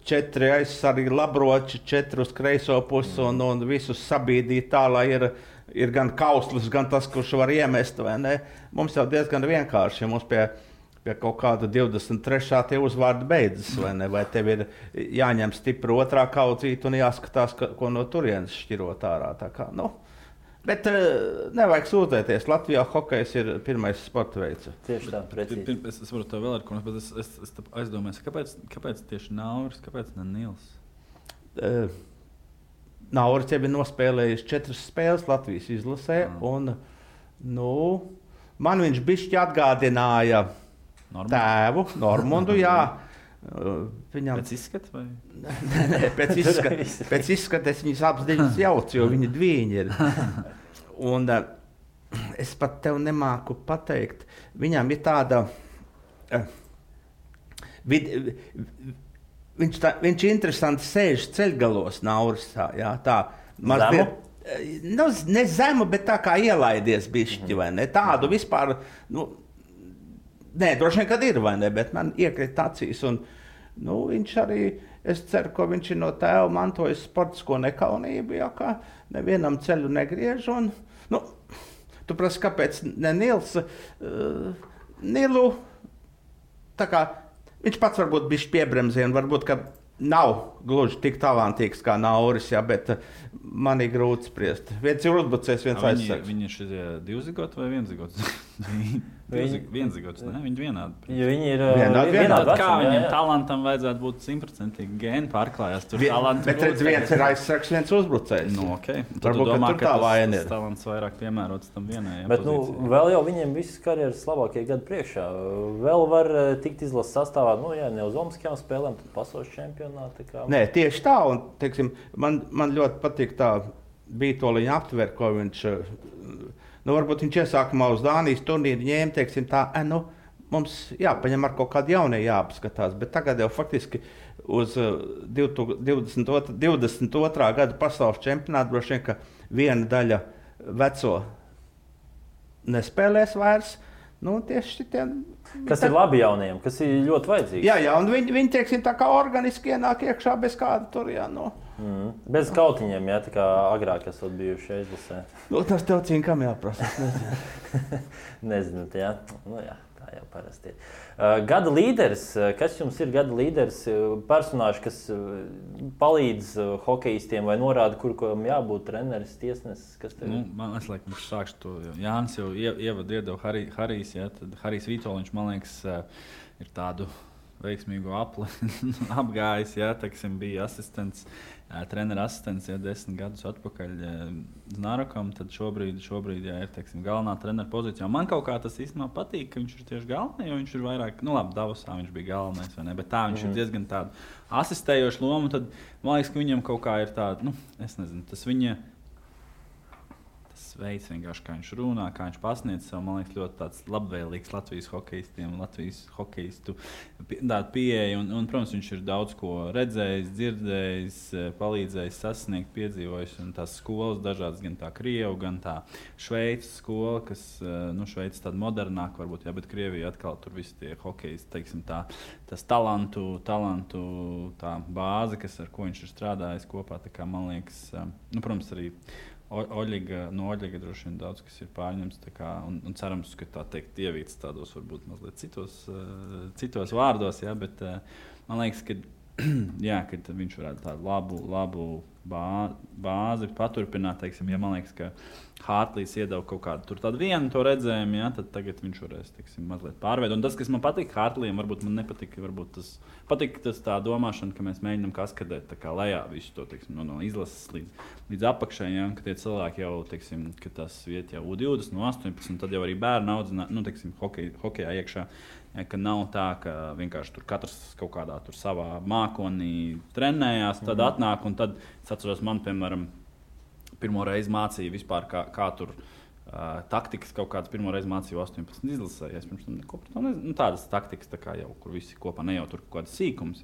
4 aizsargi labroči, 4 uz kreiso pusi un visus sabīdīt tā, lai ir gan kauslis, gan tas, kurš var iemest, vai ne? Mums jau diezgan vienkārši, ja mums pie kaut kāda 23. tie uzvārdi beidzas, vai ne? Vai tev ir jāņem stipri otrā kaudzīte un jāskatās, ko no turienes šķirot ārā. Tā kā, bet nevajag sūdzēties. Latvijā hokejs ir pirmais sporta veids. Tieši tā, precīzi. Es varu to vēl ar ko, bet es aizdomājos, kāpēc tieši Nauris, kāpēc ne Nils? Nauris jau ir nospēlējis 4 spēles Latvijas izlasē, un man viņš bišķi atgādināja tēvu, Normundu, jā. Viņam... Pēc izskata vai? Nē, pēc izskata es viņus apziņas jaucu, jo viņi dviņi ir. Un es pat tev nemāku pateikt, viņam ir tāda... Viņš interesanti sēž ceļgalos, Nauris, jā, tā. Zemu? Ne zemu, bet tā kā ielaidies bišķi, vai ne? Tādu vispār... Nē, droši vien, kad ir, vai ne, bet man iekrīt acīs, un viņš arī, es ceru, ka viņš ir no tēva mantojis sportisko nekaunību, jā, kā nevienam ceļu negriež, un, tu prasi, kāpēc ne Nils, Nilu tā kā viņš pats varbūt bišķi piebremzē un varbūt, ka nav gluži tik talantīgs kā Nauris, jā, bet man ir grūti spriest. Viens ir uzbrucējs, viens aizsargs. Viņi ir šie divzigots vai vienzigots? Vienzigots, ne? Viņi vienādi. Ja viņi ir vienādi. Kā viņiem talantam vajadzētu būt 100% gēni pārklājās? Tur talants bet redz, viens ir aizsargs, viens uzbrucējs. Nu, okay. Varbūt, domā, ka tur tā vaina ir. Tas talants vairāk piemērots tam vienajam. Bet vēl jau viņiem visas karjeras labākie gadi priekšā. Vēl var tikt izlases sastāvā, ne uz Olimpiskajām spēlēm, tad pasaules čempionāti. Nē, tieši tā, un teiksim, man ļoti patīk tā Bītoliņa aptver, ko viņš, varbūt viņš iesākumā uz Dānijas turnīru ņēma, teiksim tā, mums jāpaņem ar kaut kādu jaunie jāapskatās, bet tagad jau faktiski uz 22. gada pasaules čempionātu droši vien, ka viena daļa veco nespēlēs vairs. Tieši šitie, kas ir labi jauniem, kas ir ļoti vajadzīgs. Jā, un viņi teiksim, tā kā organiski ienāk iekšā bez kāda tur, Bez kautiņiem, tā kā agrāk esat bijuši izlasē. Tas tev cinkam jāprasa. Nezinu, jā. Tā jau parasti ir. Gada līderis, kas jums ir gada līderis? Personāži, kas palīdz hokejistiem vai norāda, kam jābūt treneris, tiesnesis? Man liekas, sākšu to. Jānis jau ievadu iedeva Harijs, tad Harijs Vitoļņš, man liekas, ir tādu veiksmīgu apgājis, teiksim, bija asistents, trenera asistents 10 gadus atpakaļ Znārokam, tad šobrīd ir, teiksim, galvenā trenera pozīcijā. Man kaut kā tas īstenībā patīk, ka viņš ir tieši galvenais, jo viņš ir vairāk, Davosā viņš bija galvenais, vai ne, bet tā viņš ir diezgan tādu asistējošu lomu, tad man liekas, ka viņam kaut kā ir tāda, es nezinu, tas viņa veids, vienkārši, kā viņš runā, kā viņš pasniedz sev, man liekas, ļoti tāds labvēlīgs Latvijas hokejistiem, Latvijas hokejistu pieeja. Un, protams, viņš ir daudz ko redzējis, dzirdējis, palīdzējis sasniegt, piedzīvojis. Un tās skolas dažādas, gan tā Krievu, gan tā Šveices skola, kas, Šveices tāda modernāka varbūt, bet Krievija atkal tur visi tie hokejisti, teiksim, tas talantu tā bāze, ar ko viņš ir strādājis kopā, tā kā, man liekas, protams, arī no Oļiga droši vien daudz, kas ir pārņemts, un cerams, ka tā teikt ievīts tādos varbūt mazliet citos vārdos, bet man liekas, ka viņš varētu tādu labu bāzi paturpināt, teiksim, man liekas, ka Hārtlīs iedeva kaut kādu tādu vienu to redzējumu, tad tagad viņš varēs, teiksim, mazliet pārveidot. Un tas, kas man patīk Hārtlījam, varbūt man nepatika, patīk tas tā domāšana, ka mēs mēģinām kaskadēt tā kā lejā visu to, teiksim, no izlases līdz apakšai, ka tie cilvēki jau, teiksim, ka tas viet jau U20, no 18, tad jau arī bērnu audzinā, teiksim, hokejā iekšā, ka nav tā, ka vienkārši tur katrs kaut kādā tur savā mākonī trenējās, tad atnāk, un tad es atceros, man, piemēram, pirmo reizi mācīja vispār, kā tur taktikas kaut kādas pirmo reizi mācīju 18 izlasē. Es pirms tam neko par to nezinu. Tādas taktikas, tā kā jau, kur visi kopā ne jau tur kaut kādas sīkums,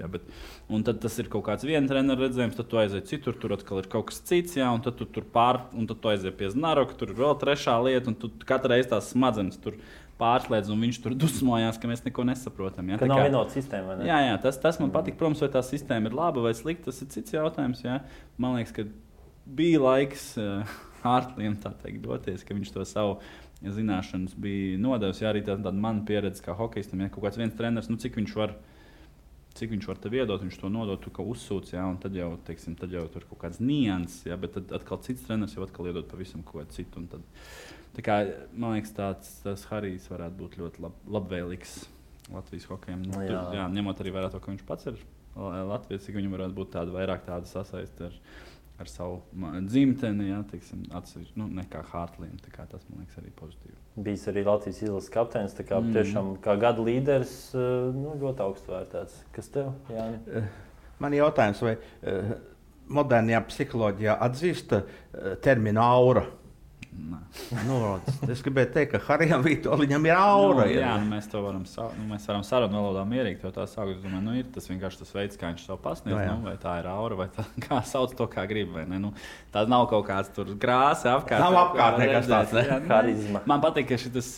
un tad tas ir kaut kāds viena trenera redzējums, tad tu aiziet citur, tur atkal ir kaut kas cits, un tad tu tur un tad tu aiziet pie Znaroka, tur ir vēl trešā lieta, un tu katru reizi tās smadzenes tur pārslēdz, un viņš tur dusmojās, ka mēs neko nesaprotam. Ka nav vienota sistēma, vai ne? Jā, tas man patīk. Protams, vai tā sistēma ir laba vai slikta, tas ir cits jautājums. Man liekas, ka bija laiks Hārtlijam tā teikt doties, ka viņš to savu zināšanas bija nodevis. Arī tāda mana pieredze kā hokejistam, kaut kāds viens treneris, cik viņš var tev iedot, viņš to nodot, tu kā uzsūc, un tad jau, teiksim, tur kaut kāds nianses, bet tad atkal cits treneris jau atkal iedot pavisam kaut ko citu. Tad, tā kā, man liekas, tas Harijs varētu būt ļoti labvēlīgs Latvijas hokejam. Ņemot arī vērā to, ka viņš pats ir Latvijas, cik viņam varētu būt vairāk tāda sasaiste ar savu dzimteni, teiksim, atsevišķi, nekā Hārtlijam. Tas, man liekas, arī pozitīvi. Bijis arī Latvijas izlases kapteinis, tā kā tiešām kā gada līderis ļoti augstu vērtēts. Kas tev, Jāni? Man ir jautājums, vai modernajā psiholoģijā atzīst terminu aura? Es gribēju teikt, ka Harijam Vitoļņam ir aura. Mēs to varam sarunu valodā mierīgi to tā saukt. Es domāju, ir tas vienkārši tas veids, kā viņš to pasniedz, vai tā ir aura, vai tā, kā sauc to, kā grib, vai ne. Tā nav kaut kāds tur grāsa apkārt. Nav apkārt nekas tāds, ne? Harizma. Man patīk, ka šitas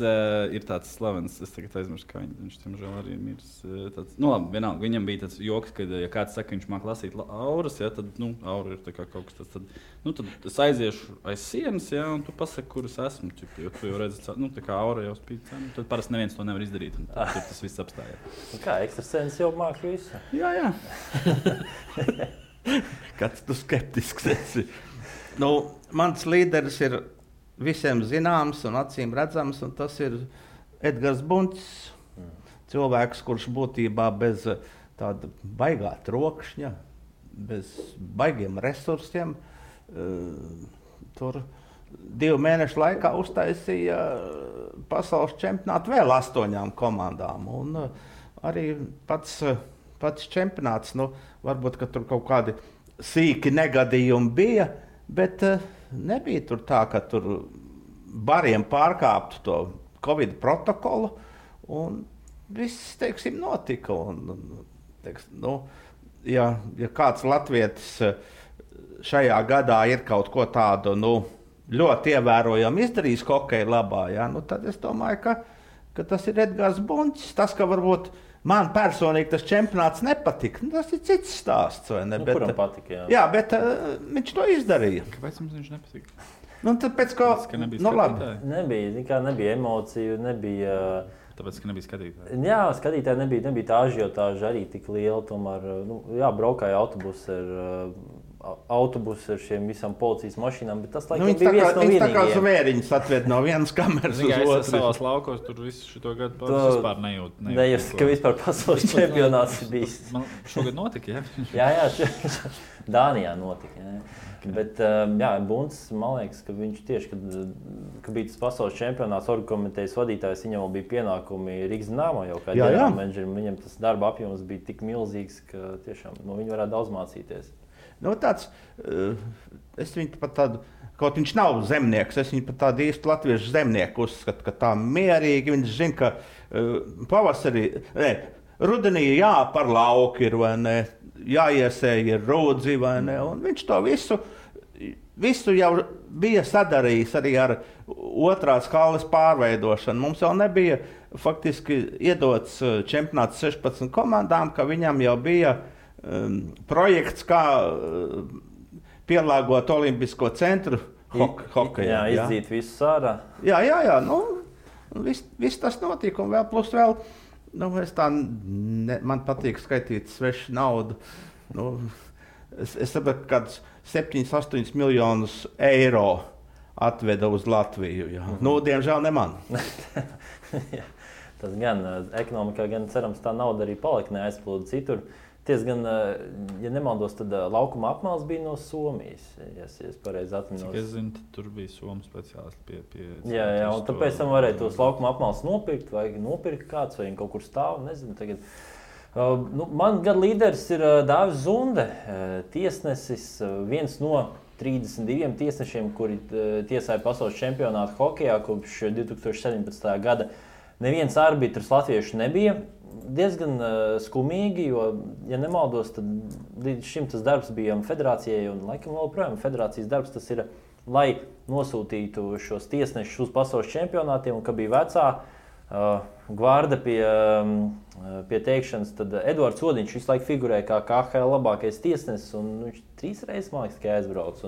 ir tāds slavens, es tagad aizmirstu, kā viņš tiemžēl arī mirs. Labi, vienalga, viņam bija tāds joks, ka, ja kāds saka, viņš māk lasīt auras, tad, aura ir tā kā kaut kas tāds, tad es aiziešu aiz sienas, un tu pasaki, kurus esmu. Jo tu jau redzi, tā kā aura jau spīd. Tad parasti neviens to nevar izdarīt. Tur tas viss apstājās. Kā ekstrasens jau māk visu? Jā. Kāds tu skeptisks esi? Mans līderis ir visiem zināms un acīm redzams, un tas ir Edgars Buncis. Cilvēks, kurš būtībā bez tāda baigā trokšņa, bez baigiem resursiem, tur 2 mēnešu laikā uztaisīja pasaules čempionātu vēl 8 komandām. Un arī pats čempionāts, varbūt, ka tur kaut kādi sīki negadījumi bija, bet nebija tur tā, ka tur bariem pārkāptu to Covid protokolu, un viss, teiksim, notika. Ja kāds latvietis šajā gadā ir kaut ko tādu ļoti ievērojami izdarījis hokeja labā, tad es domāju, ka tas ir Edgars Buncis. Tas, ka varbūt man personīgi tas čempionāts nepatika, tas ir cits stāsts. Kuram patika? Jā, bet viņš to izdarīja. Kāpēc mums viņš nepatika? Tāpēc, ka nebija emociju, nebija... Tāpēc, ka nebija skatītāji. Jā, skatītāji nebija tā ažiotāža arī tik liela. Tomēr, braukāja autobusi ar šiem visām policijas mašīnām, bet tas laikam bija viens no vienīgajiem. Tā kā zvēriņus atved no vienas kameras uz otru. Savās laukos tur visu šito gadu vispār nejūt. Nejust, ka vispār pasaules čempionāts ir bijis. Man šogad notika, Jā, Dānijā notika. Jā. Bet Buncis, man liekas, ka viņš tieši, kad bija tas pasaules čempionāts, orgkomitejas vadītājs, viņam bija pienākumi Rīgas Dināmo jau kā ģenerālmenedžerim. Viņam tas darba apjoms bija tik milzīgs, ka tiešām viņi varētu daudz mācīties. Es viņu pat tādu, kaut viņš nav zemnieks, es viņu pat tādu īstu latviešu zemnieku uzskatu, ka tā mierīgi viņš zina, ka rudenī par lauku ir, vai ne, jāiesēja ir rūdzi, vai ne, un viņš to visu jau bija sadarījis arī ar otrās halles pārveidošanu. Mums jau nebija faktiski iedots čempionāts 16 komandām, ka viņam jau bija projekts, kā pielāgot olimpisko centru hokejā. Jā, izdzīt visu ārā. Jā, viss tas notika, un vēl plus vēl, man patīk skaitīt svešu naudu. Es saprotu, ka kādus 7-8 miljonus eiro atveda uz Latviju. Diemžēl ne man. Tas gan ekonomikā, gan cerams, tā nauda arī palika neaizplūda citur. Gan, ja nemaldos, tad laukuma apmales bija no Somijas. Ja es pareizi atminos. Cik es zinu, tur bija Somu speciālisti pie Jā, un tāpēc tam varēja tos laukuma apmales nopirkt, vai nopirkt kāds, vai kaut kur stāv, nezinu. Tagad. Man gada līderis ir Dāvis Zunde, tiesnesis, viens no 32 tiesnešiem, kuri tiesāja pasaules čempionātu hokejā kopš 2017. gada. Neviens arbitrs latviešu nebija. Diezgan skumīgi, jo, ja nemaldos, tad līdz šim tas darbs bija federācijai, un laikam vēl projām federācijas darbs tas ir, lai nosūtītu šos tiesnešus uz pasaules čempionātiem, un ka bija vecā gvarda pie teikšanas, tad Eduards Odiņš visu laiku figurēja kā KHL labākais tiesnesis, un viņš 3 reizes, man liekas, tikai aizbrauc.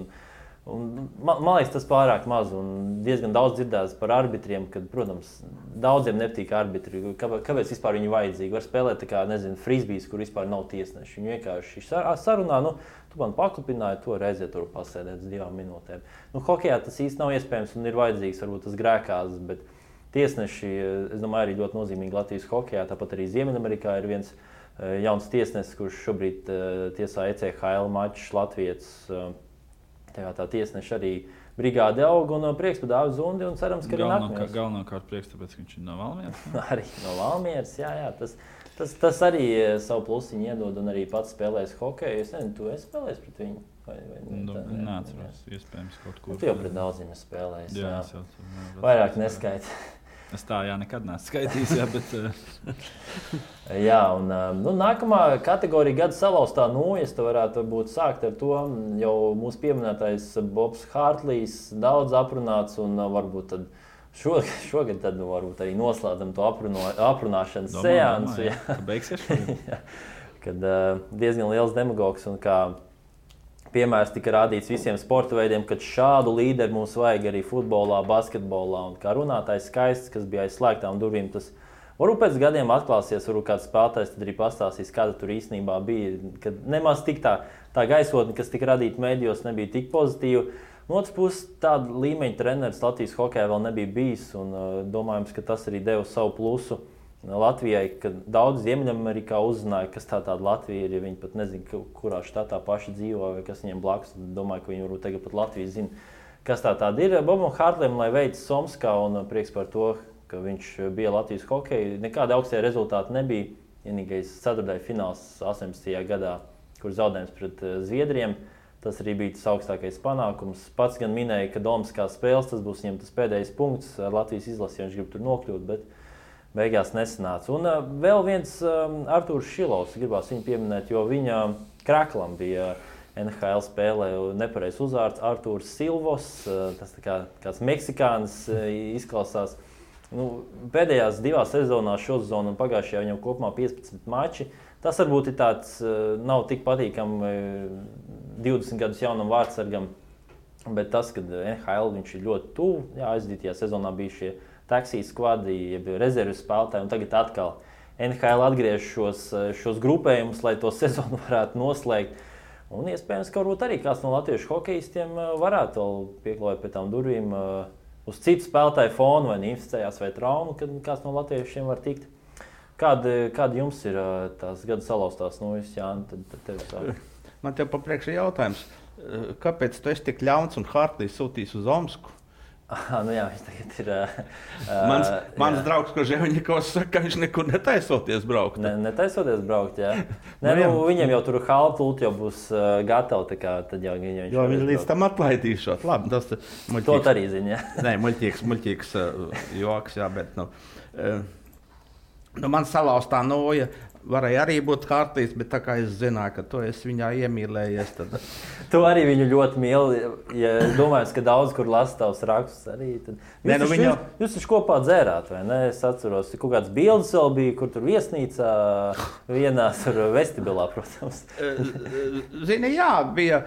Man liekas, tas pārāk maz, un diezgan daudz dzirdēts par arbitriem, kad, protams, daudziem nepatīk arbitri. Kāpēc vispār viņi vajadzīgi? Var spēlēt tā kā, frisbijs, kur vispār nav tiesneši. Viņi vienkārši sarunā, tu man paklupināji, to reizē tur pasēdēt uz 2 minūtēm. Hokejā tas īsti nav iespējams un ir vajadzīgs, varbūt tas grēkās, bet tiesneši, es domāju, arī ļoti nozīmīgi Latvijas hokejā. Tāpat arī Ziemeļamerikā ir viens jauns tiesnesis, kurš šobrīd tiesā ECHL mačus Latvijas. Tā tiesneša arī brigāde aug, un prieks par Dāvidu Zundi, un cerams, ka arī nākamais. Galvenokārt prieks, tāpēc, ka viņš ir no Valmieras. Arī no Valmieras, jā. Tas arī savu plusiņu iedod, un arī pats spēlēs hokeju. Es nezinu, tu esi spēlējis pret viņu? Neatceros, iespējams kaut kur. Tu jau pret daudziem esi spēlējis. Jā. Vairāk neskaiti. Es tā nekad neesmu skaitījis, bet... Jā, un nākamā kategorija gada salauztā nojas, tu varētu varbūt sākt ar to. Jau mūsu pieminētais Bobs Hārtlīs daudz aprunāts, un varbūt tad šogad tad varbūt arī noslēdzam to aprunāšanas seansu. Beigsies šogad. Kad diezgan liels demagogs, un kā piemērs tika rādīts visiem sporta veidiem, kad šādu līderi mums vajag arī futbolā, basketbolā. Un kā runātājs Skaists, kas bija aiz slēgtām durvīm, tas varbūt pēc gadiem atklāsies, varbūt kāds spēlētājs tad arī pastāstīs, kāda tur īstenībā bija. Kad nemaz tik tā gaisotne, kas tika radīta mēdījos, nebija tik pozitīva. No otras puses, tāda līmeņa treneris Latvijas hokejā vēl nebija bijis. Un, domājams, ka tas arī deva savu plusu Latvijai, kad daudz Ziemeļamerikā uzzināja, kas tāda Latvija ir. Ja viņi pat nezina, kurā štatā paši dzīvo vai kas viņiem blakus. Domāju, ka viņi varbūt tagad pat Latviju zina, kas tāda ir. Bobam Hartlim, lai veids Somskā, un prieks par to, ka viņš bija Latvijas hokeja. Nekāda augstie rezultāti nebija. Vienīgais ceturtajā fināls 18. gadā, kur zaudējums pret Zviedriem. Tas arī bija tas augstākais panākums. Pats gan minēja, ka Domskā spēles tas būs viņam tas pēdējais punkts ar Latvijas izlasi, ja viņš grib tur nokļūt, bet beigās nesanāca. Un vēl viens Artūrs Šilovs, gribās viņu pieminēt, jo viņa Kraklam bija NHL spēlē nepareizs uzvārds Artūrs Silvos, tas tā kā kāds meksikānis izklausās. Pēdējās 2 sezonās šo sezonu un pagājušajā viņam kopumā 15 mači. Tas varbūt ir tāds, nav tik patīkami 20 gadus jaunam vārdsargam, bet tas, kad NHL viņš ir ļoti tuvu, aizdītajā sezonā bija šie taksijas skvadi, jeb rezerves spēlētāji, un tagad atkal NHL atgriež šos grupējumus, lai to sezonu varētu noslēgt. Un iespējams, ka varbūt arī kāds no latviešu hokejistiem varētu vēl pieklājot pie tām durvīm uz citu spēlētāju fonu, vai inficējās vai traumu, kad kāds no latviešiem var tikt. Kāda jums ir tās gada salauztās nojas, Jāni? Tad tev sāk. Man tev papriekš ir jautājums, kāpēc tu esi tik ļauns un Hartlīs sūtīs uz Omsku? Jā, viņš tagad ir... Mans draugs Koževiņikovs saka, ka viņš nekur netaisoties braukt. Netaisoties braukt, jā. Viņiem jau tur halpult jau būs gatavi, tā kā tad jau viņš... Jo viņi līdz tam atlaidīšot. Labi, tas muļķīgs. To arī zina, jā. Nē, muļķīgs joks, jā, bet... Man salauztā noja varēja arī būt Hartlīs, bet tā kā es zināju, ka tu esi viņā iemīlējies, tad... Tu arī viņu ļoti mīli, ja domāju, ka daudz, kur lasa tavs rakstus arī. Tad... Jūs taču kopā dzērāt, vai ne? Es atceros, kaut kāds bildes vēl bija, kur tur viesnīcā vienā tur vestibilā, protams. Zini, jā, bija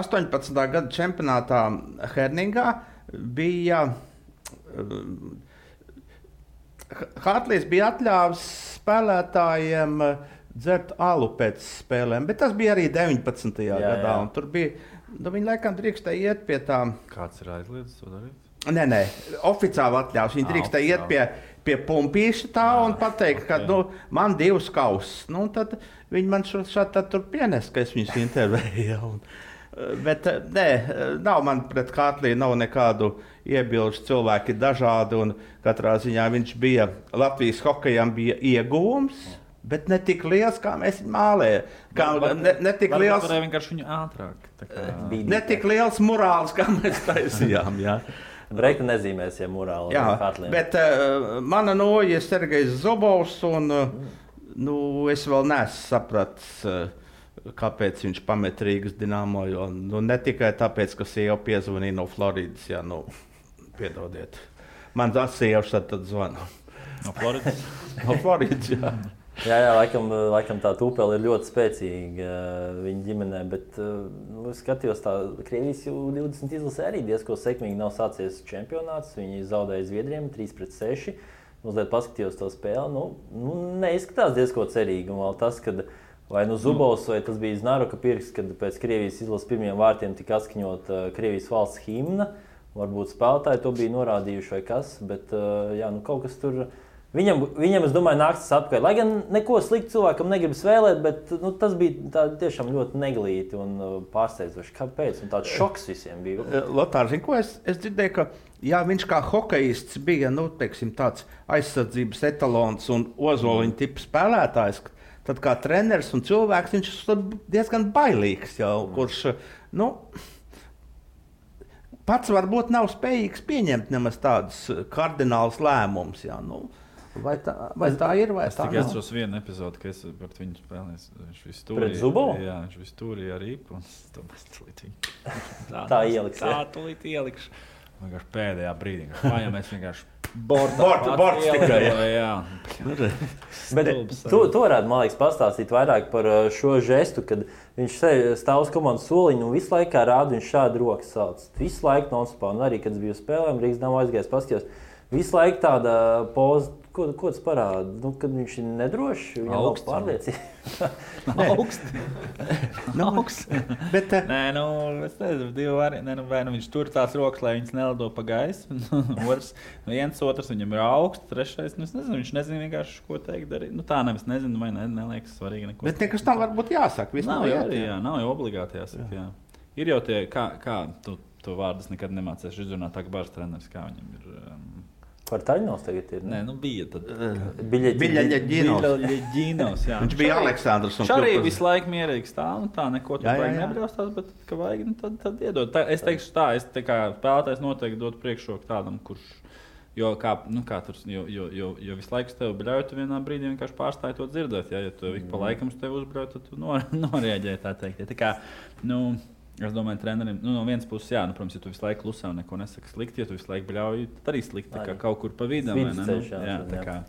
18. gada čempionātā Herningā, bija... Hartlīs bija atļāvis spēlētājiem dzert alu pēc spēlēm, bet tas bija arī 19. gadā. Un tur bija, viņi laikam drīkstēja iet pie tām... Kāds ir aizliedzis to darīt? Nē, oficiāli atļāvis. Viņi drīkstēja iet pie pumpīša tā un pateikt, ka man 2 kausus. Tad viņi man šādi tur pienes, ka es viņus intervēju. Bet nē, nav man pret Hartlī nav nekādu iebilžu, cilvēki dažādi, un katrā ziņā viņš bija, Latvijas hokejam bija ieguvums, bet ne tik liels, kā mēs viņu mālējam. Ne tik liels... Varēja vienkārši viņu ātrāk. Ne tik liels morāls, kā mēs taisījām, jā. Breikta nezīmēs, ja morāli. Jā, bet mana noja ir Sergejs Zobovs, un es vēl neesmu sapratis, kāpēc viņš pamet Rīgas Dinamo, jo ne tikai tāpēc, ka sieva piezvanīja no Floridas, jā, piedodiet. Man sieva tad zvana. No Floridas? No Floridas, jā. Jā, laikam tā tūpele ir ļoti spēcīga viņa ģimenē, bet skatījos tā Krievijas 20 izlasē arī diezko sekmīgi nav sācies čempionāts, viņi zaudēja Zviedriem 3-6, mazliet paskatījos to spēli, neizskatās diezko cerīgi, un vēl tas, kad vai Zubovs, vai tas bija Znaroka pirks, kad pēc Krievijas izlases pirmiem vārtiem tika atskaņot Krievijas valsts himna, varbūt spēlētāji to bija norādījuši vai kas, bet kaut kas tur... Viņam, es domāju, nāks tas atpakaļ. Lai gan neko sliktu cilvēkam negribas vēlēt, bet tas bija tiešām ļoti neglīti un pārsteidzoši. Kāpēc? Un tāds šoks visiem bija. Lotār, zini, ko es dzirdēju, ka viņš kā hokejists bija tāds aizsardzības etalons un ozoliņa tipa spēlētājs, tad kā treneris un cilvēks viņš ir diezgan bailīgs jau, kurš pats varbūt nav spējīgs pieņemt nemaz tādus kardinālus lēmumus. Vai tā ir, vai tā nav? Es atceros vienu epizodi, ka es par viņu spēlēju. Viņš visu stūrīja. Pret Zubovu? Jā, viņš visu stūrīja ar Ipu. Tā ieliks. Tā tūlīt ielikšu. Vienkārši pēdējā brīdī. Vai mēs vienkārši Bords tikai. Jā. Bet tu varētu, man liekas, pastāstīt vairāk par šo žestu, kad viņš stāv uz komandas soliņa un visu laiku rāda, viņš šādi rokas sauc. Visu laiku non-stopā, un arī, kad es biju spēlēm, Rīgas Dāmu aizgājis paskatījos, visu laiku tāda poza, ko tas parāda? Nu, kad viņš ir nedrošs, viņam nav pārliecība. Augsts. Bet, nē, nu, es nezinu, divi varianti. Vai nu viņš tur tās rokas, lai viņas nelido pa gaisu. Otrs viņam ir augsts, trešais, nu, es nezinu, viņš nezina vienkārši, ko teikt darīt. Nu, tā nevis nezinu, vai neliekas svarīgi neko. Bet nekas tam varbūt jāsaka. Nav jau obligāti jāsaka, jā. Ir jau tie, kā tu vārdus nekad nemācēsi izrunāt, tā kā bārs treneris, kā viņam ir... Par Taļinos tagad ir? Nē, nu bija tad. Biļaļaģinos. Jā. Viņš bija Aleksandrs. Viņš arī visu laiku mierīgi stāv, tā neko tur vajag nebraucās, bet, ka vajag, nu, tad iedod. Es teikšu tā, es tā kā spēlētājs noteikti dot priekšroku tādam, kurš, jo visu laiku tev bļauj, tu vienā brīdī vienkārši pārstāji to dzirdēt, ja tu ik pa laikam tev uzbļauj, tad tu norēģēji, tā teikt. Ja, tā kā, nu, es domāju, trenerim, nu, no vienas puses, jā, nu, protams, ja tu visu laiku klusē un neko nesaki slikti, ja tu visu laiku bļauj, tad arī slikti, kā kaut kur pa vidam, vai ne? Jā, tā kā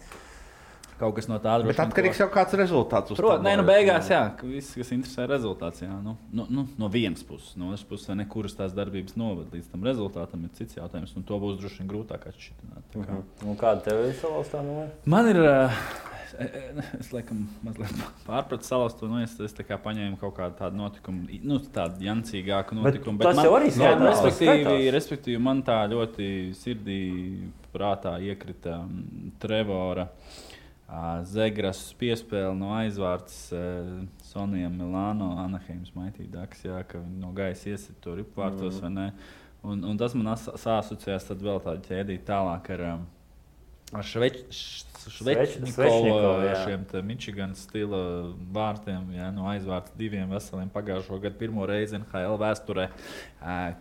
kaut kas no tā droši. Bet atkarīgs jau kāds rezultāts uz nē, nu beigās, jā, viss, kas interesē rezultāts, jā, no vienas puses, no otras puses, vai ne, kuras tās darbības novad līdz tam rezultātam, ir cits jautājums, un to būs droši vien grūtāk atšķirt. Un kāda tev ir salauzt tā numē? Man ir... Es laikam mazliet pārpratu salauzt, nu es tā kā paņēmu kaut kādu tādu notikumu, nu tādu jancīgāku notikumu. Bet tas jau arī respektīvi, man tā ļoti sirdī prātā iekrita Trevora Zegras piespēle no aizvārds Sonijam Milāno, Anaheims Maitīdāks, jā, ka viņi no gaisa iesit to ripvārtos, vai ne? Un tas man sāsociējās tad vēl tādu ķēdīt tālāk ar Švečnikovu, šiem Michigan stila vārtiem, jā, no aizvārds 2 veseliem pagājušo gadu pirmo reizi NHL vēsturē,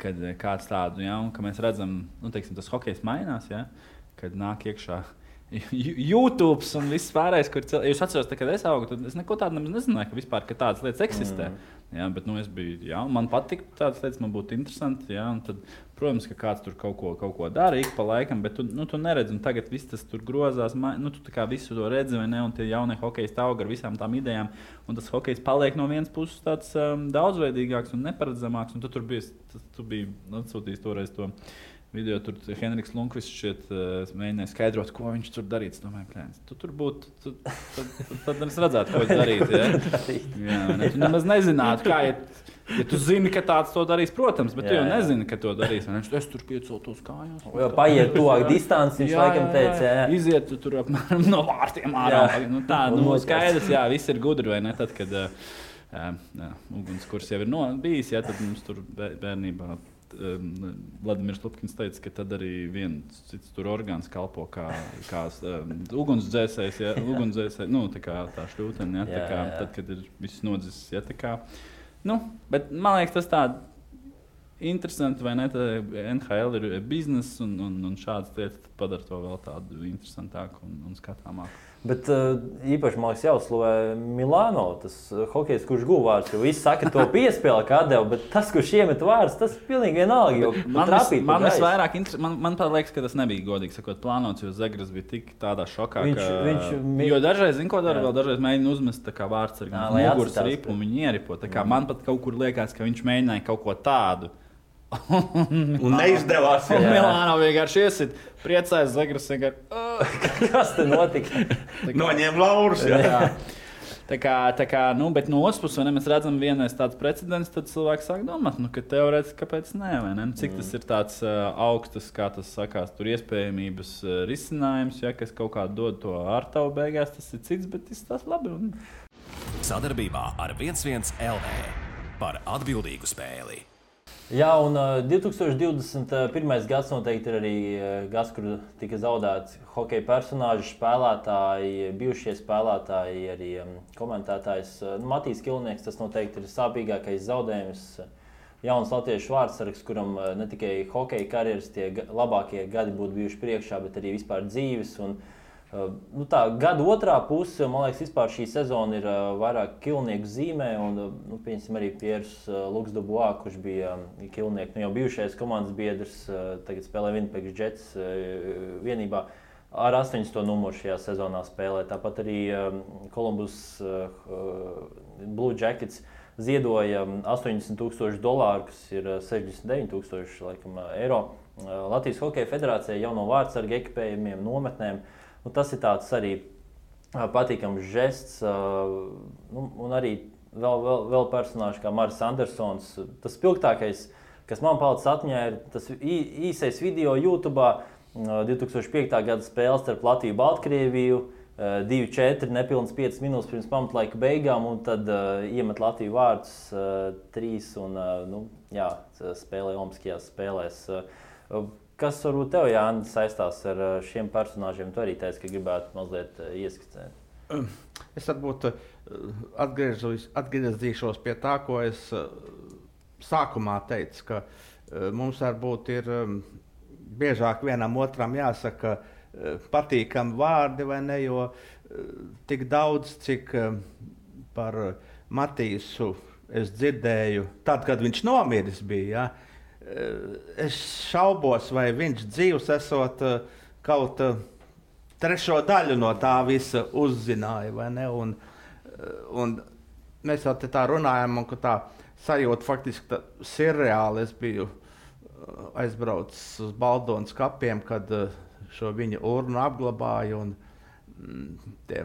kad kāds tādu, jā, un ka mēs redzam, nu, teiksim, tas hokejs mainās, jā, kad nāk iekšā YouTube un viss pārējais, kur jūs atceros, kad es augu, tad es neko tādu nezināju, ka vispār ka tādas lietas eksistē. Jā, bet nu, es biju, jā, man patika tādas lietas, man būtu interesanti, jā, un tad, protams, ka kāds tur kaut ko dara ik pa laikam, bet tu neredzi, un tagad viss tas tur grozās, nu, tu tā kā visu to redzi, vai ne, un tie jaunie hokeji aug ar visām tām idejām, un tas hokejs paliek no vienas puses tāds daudzveidīgāks un neparedzamāks, un tu biji atsūtījis toreiz to video, tur Henriks Lundqvists šķiet mēģināja skaidrot, ko viņš tur darīt. Es domāju, plēns, tu tur būtu, tad es redzētu, ko viņš darīt. Ja? Jā, ne, tu nemaz nezinātu, kā, ja tu zini, ka tāds to darīs, protams, bet tu jau nezini, ka to darīs. Es tur pieceltos kājās. Jau paiet tuvāk distanci, viņš laikam teica, jā. Iziet tu tur apmēram no vārtiem ārā. Nu, tā, nu, skaidrs, jā, viss ir gudri, vai ne? Tad, kad ugunskurs jau ir bijis, jā, tad mums tur bērnībā Vladimirs Lupkins teica, ka tad arī viens cits tur orgāns kalpo kā ugunsdzēsējs, ja, nu, tā šļūtene, ja, tā kā, tad, kad ir viss nodzis, ja, tā kā, nu, bet man liekas, tas tā interesanti, vai ne, tā NHL ir biznes un šādas lietas padara to vēl tādu interesantāku un skatāmāku. Bet īpaši, man liekas, jāuzslavē Milāno, tas hokejs, kurš guva vārds, jo visi saka, to piespēle kā deva, bet tas, kurš iemet vārds, tas pilnīgi vienalga, jo man visvairāk man liekas, ka tas nebija godīgi sakot plānots, jo Zegras bija tik tādā šokā, jo dažreiz, zin ko dara, vēl dažreiz mēģina uzmest tā kā vārds ar muguras ripu un viņi ieripo, tā kā man pat kaut kur liekas, ka viņš mēģināja kaut ko tādu. Un neizdevās. Un Milāno vienkārši iesit, priecājas Zegras vienkārši. Kas te notika? Noņēma laurus. Jā. Tā kā, nu, bet no otras puses, mēs redzam vienais tāds precedents, tad cilvēki sāk domāt, nu, ka teorētiski kāpēc nē, vai ne? Cik tas ir tāds augstas, kā tas sakās, tur iespējamības risinājums, ja, kas kaut kā dod to ārtavu beigās, tas ir cits, bet tas labi. Sadarbībā ar 11 LV par atbildīgu spēli. Jā, un 2021. gads noteikti ir arī gads, kur tika zaudēts hokeja personāži, spēlētāji, bijušie spēlētāji, arī komentētājs. Matīs Kilnieks, tas noteikti ir sāpīgākais zaudējums. Jauns latviešu vārdsargs, kuram ne tikai hokeja karjeras tie labākie gadi būtu bijuši priekšā, bet arī vispār dzīves. Un Gada otrā puse, man liekas, vispār šī sezona ir vairāk kilnieku zīmē. Un, piemēram, arī Pieris Luksdubois, kurš bija kilnieku, jau bijušais komandas biedrs, tagad spēlē Winnipeg Jets vienībā. Ar 8. numuru šajā sezonā spēlē. Tāpat arī Columbus Blue Jackets ziedoja $80,000, kas ir 69,000 laikam, eiro. Latvijas Hokeja federācijai jauno vārdsargu ekipējumiem, nometnēm. Tas ir tāds arī patīkams žests. Un arī vēl personāži kā Maris Andersons. Tas spilgtākais, kas man palicis atmiņā, ir tas īsais video YouTube. 2005. gada spēle starp Latviju un Baltkrieviju, 2-4, nepilnas 5 minūtes pirms pamatlaika beigām, un tad iemet Latviju vārdus 3 un spēlē Olimpiskajās spēlēs. Kas varbūt tev, Jānis, saistās ar šiem personāžiem? Tu arī teici, ka gribētu mazliet ieskicēt. Es varbūt atgriezīšos pie tā, ko es sākumā teicu, ka mums varbūt ir biežāk vienam otram jāsaka patīkami vārdi, vai ne, jo tik daudz, cik par Matīsu es dzirdēju, tad, kad viņš nomiris bija, es šaubos, vai viņš dzīvs esot kaut trešo daļu no tā visa uzzināja, vai ne, un mēs jau te tā runājam, un ka tā sajūta faktiski sirreāli. Es biju aizbraucis uz Baldonas kapiem, kad šo viņa urnu apglabāja, un tie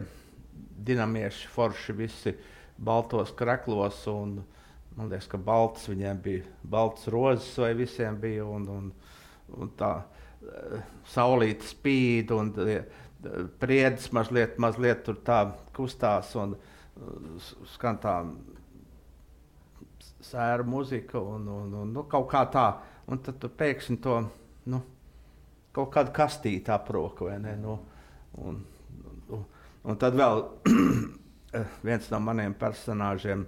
dinamieši forši visi baltos kreklos, un man liekas, ka baltas viņiem bija, baltas rozes vai visiem bija, un tā saulīte spīd, un priedis mazliet tur tā kustās, un skan tā sēra muzika, un kaut kā tā. Un tad tu pēkšņi to kaut kādu kastīti aproka, vai ne? Un tad vēl viens no maniem personāžiem,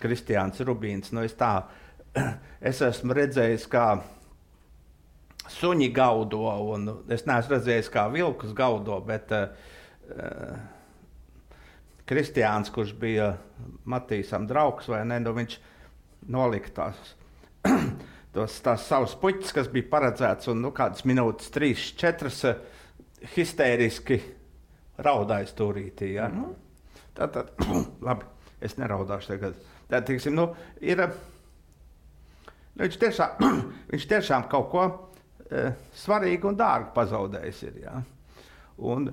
Kristiāns Rubīns. Es esmu redzējis, kā suņi gaudo, un es neesmu redzējis, kā vilkus gaudo, bet Kristiāns, kurš bija Matīsam draugs, vai ne, viņš nolika tās savas puķis, kas bija paredzēts, un kādas minūtes, 3-4 histēriski raudāja stūrītī. Ja? Tad, labi, es neraudāšu tagad. Tad, teiksim, viņš tiešām kaut ko svarīgu un dārgu pazaudējis ir. Ja? Un,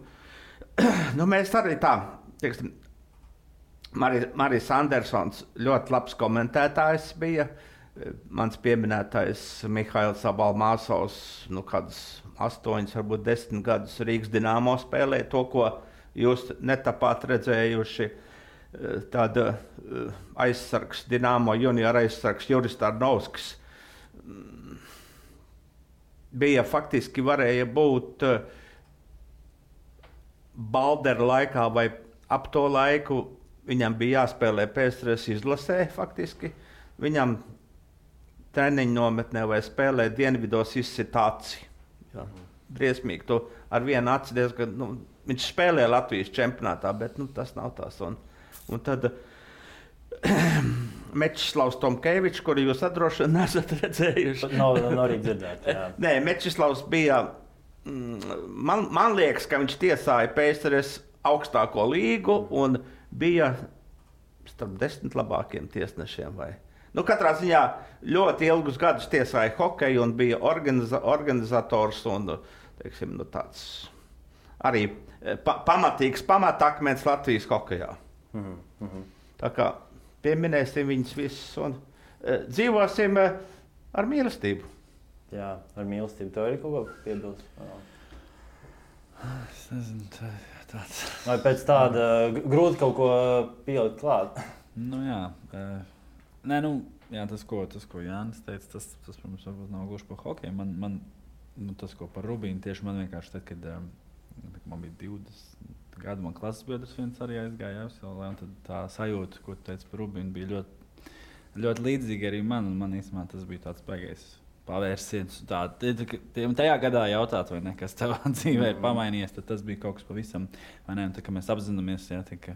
mēs arī tā, teiksim, Maris Andersons ļoti labs komentētājs bija. Mans pieminētais Mihails Abalmāsovs, kādus 8, varbūt 10 gadus Rīgas Dinamo spēlēja to, ko jūs netapāt redzējuši. Tāda aizsargs, Dinamo junior aizsargs Juris Tarnovskis bija faktiski varēja būt Baldera laikā vai ap to laiku. Viņam bija jāspēlē PSRS izlasē faktiski. Viņam treniņu nometnē vai spēlē dienvidos izsitāci. Briesmīgi. To ar vienu aci diezgan, viņš spēlē Latvijas čempionātā, bet tas nav tās. Un tad Mečislavs Tomkevičs, kuru jūs droši vien nesat redzējuši. Nav arī dzirdēt, jā. Nē, Mečislavs bija, man liekas, ka viņš tiesāja PSRS augstāko līgu un bija starp 10 labākiem tiesnešiem. Katrā ziņā ļoti ilgus gadus tiesāja hokeju un bija organizators un teiksim, tāds arī pamatīgs pamatakmens Latvijas hokejā. Tā kā pieminēsim viņus visus un dzīvosim ar mīlestību. Jā, ar mīlestību. Tev ir kaut ko piebilst? Es nezinu, tāds. Vai pēc tāda grūti kaut ko pielikt klāt? Jā, tas, ko Jānis teica, tas protams, varbūt nav gluži par hokeju. Tas, ko par Rubīnu, tieši man vienkārši tad, kad man bija 20 gadu, man klases biedrs viens arī aizgāja Jāviselē, un tad tā sajūta, ko tu teici par Rubīnu, bija ļoti, ļoti līdzīga arī man, un man īstenībā tas bija tāds baigais pavērsiens. Tajā gadā jautāt, vai ne, kas tavā dzīvē ir pamainījies, tad tas bija kaut kas pavisam. Vai ne, un tā, ka mēs apzināmies, ka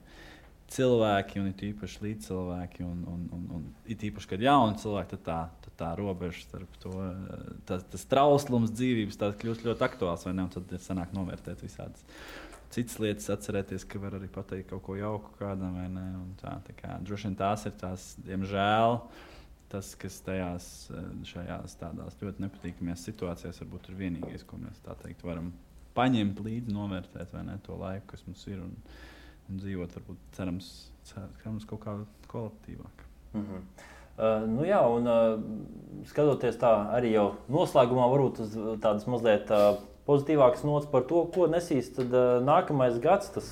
cilvēki, un it īpaši līdzcilvēki, un it īpaši, kad jauni cilvēki, tad tā robeža starp to, tas trauslums dzīvības kļūst ļoti aktuāls, vai ne, un tad ir sanāk novērtēt visādas citas lietas, atcerēties, ka var arī pateikt kaut ko jauku kādam, vai ne, un tā kā droši vien tās ir tās, diemžēl, tas, kas šajās tādās ļoti nepatīkamajās situācijās varbūt ir vienīgais, ko mēs tā teikt varam paņemt līdzi, novērtēt, vai ne, to laiku, kas mums ir, un dzīvot, varbūt, cerams kaut kā kolektīvāk. Jā, un skatoties tā arī jau noslēgumā, varbūt uz tādas mazliet pozitīvākas nots par to, ko nesīs tad nākamais gads. Tas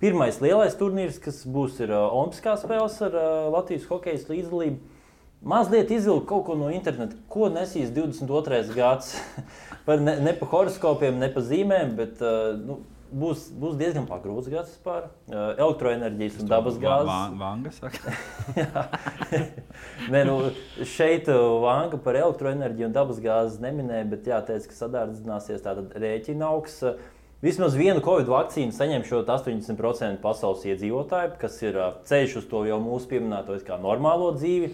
pirmais lielais turnīrs, kas būs, ir Olimpiskās spēles ar Latvijas hokejas līdzdalību. Mazliet izvilkt kaut ko no interneta, ko nesīs 22. gads. Ne pa horoskopiem, ne pa zīmēm, bet būs diezgan pagrūts gads vispār. Elektroenerģijas un dabas gāzes. Vanga saka? Nē, šeit Vanga par elektroenerģiju un dabas gāzes neminēja, bet jāteic, ka sadārdzināsies tātad rēķina augs. Vismaz vienu Covid vakcīnu saņem šo 80% pasaules iedzīvotāju, kas ir ceļš uz to jau mūsu pieminēto kā normālo dzīvi.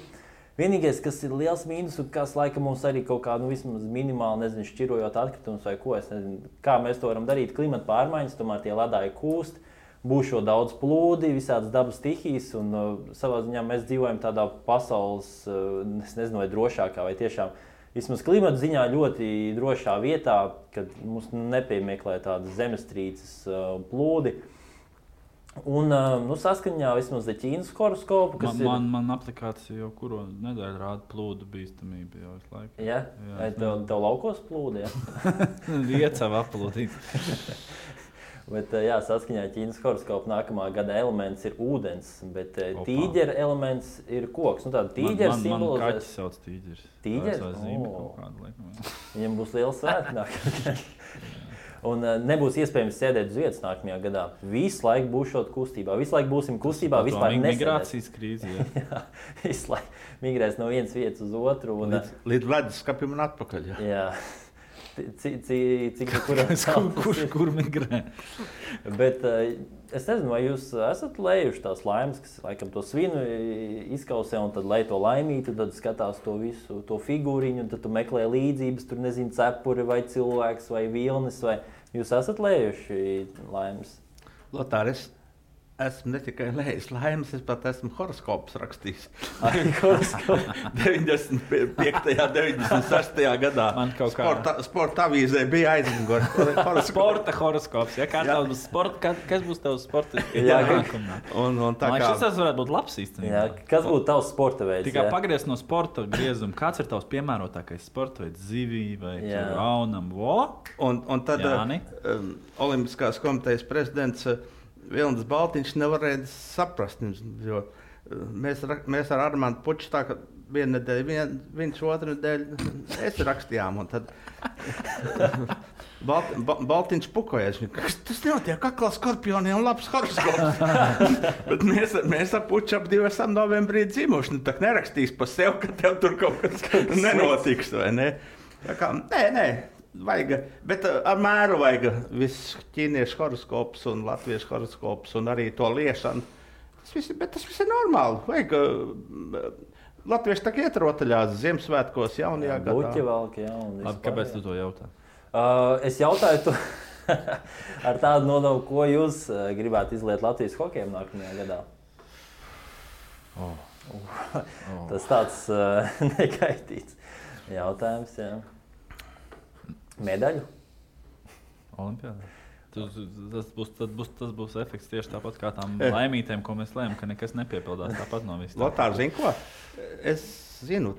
Vienīgais, kas ir liels mīnus, un kas laikam mums arī kaut kā vismaz minimāli, šķirojot atkritumus vai ko, es nezinu, kā mēs to varam darīt, klimata pārmaiņas, tomēr tie ledāji kūst, būs šo daudz plūdi, visādas dabas stihijas, un savā ziņā mēs dzīvojam tādā pasaules, es nezinu, vai drošākā, vai tiešām vismaz klimata ziņā ļoti drošā vietā, kad mums nepiemeklē tādas zemestrīces plūdi. Un saskaņā vismaz ar Ķīnas horoskopu, kas man aplikācija jau kuru nedēļu rāda plūdu bīstamību jau visu laiku. Jā? Vai tev laukos plūdi, jā? Viecā aplūdīt. Bet saskaņā ar Ķīnas horoskopu nākamā gada elements ir ūdens, bet tīģera elements ir koks. Tāda tīģera simbolizēs... Man kaķis sauc tīģeris. Tīģeris? Tā zīme kaut kāda laikam. Viņam būs liels svētki nākamajā. Un nebūs iespējams sēdēt uz vietas nākamajā gadā. Visu laiku būšot kustībā. Visu laiku būsim kustībā. Vispār nesēdēt. Migrācijas krīze, jā. Jā, visu laiku migrēs no vienas vietas uz otru. Un, līdz leduskapim un atpakaļ. Jā. Kur migrē? Bet es nezinu, vai jūs esat lējuši tās laimes, kas laikam to svinu izkausē, un tad lej to laimīti, tad skatās to visu, to figūriņu, un tad tu meklē līdzības, tur nezinu, cepuri vai cilvēks vai vilnis, vai jūs esat lējuši laimes? Lotār, esmu ne tikai lējis laimes, es pat esmu horoskopus rakstījis. 95. 96. gadā. Man kaut kā... Sporta avīzē bija aizmugurē horoskops. Sporta horoskops, ja? Kas būs tavs sporta? Un tā kā... Šis varētu būt labs īstenībā. Jā, kas būtu tavs sporta veids? Tikai pagriez no sporta griezuma. Kāds ir tavs piemērotākais sporta veids? Zivī vai raunam? Un tad Olimpiskās komitejas prezidents Vilnis Baltiņš nevarēja saprast, jo mēs ar Armandu Puču tā, ka vienu nedēļu, viņš otru nedēļu es rakstījām, un tad Baltiņš pukojies. Tas nenotiek aklā skorpioniem labs horoskops. Bet mēs ar Puču ap 2 esam novembrī dzimuši. Tā nerakstīs pa sev, ka tev tur kaut kas nenotiks, vai ne? Tā kā, nē. Vajag, bet ar mēru vajag viss ķīniešu horoskops un latviešu horoskops un arī to liešanu. Tas viss ir normāli. Vajag, latvieši tā iet rotaļās Ziemassvētkos jaunajā gadā. Buķi valk, jā. Kāpēc tu to jautā? Es jautāju to ar tādu nodomu, ko jūs gribētu izliet Latvijas hokejam nākamajā gadā. Tas tāds nekaitīts jautājums, jā. Medaļu? Olimpiādā. Tas būs efekts tieši tāpat kā tām laimītēm, ko mēs lēmām, ka nekas nepiepildās tāpat no visām. Lotār, zini ko? Es zinu,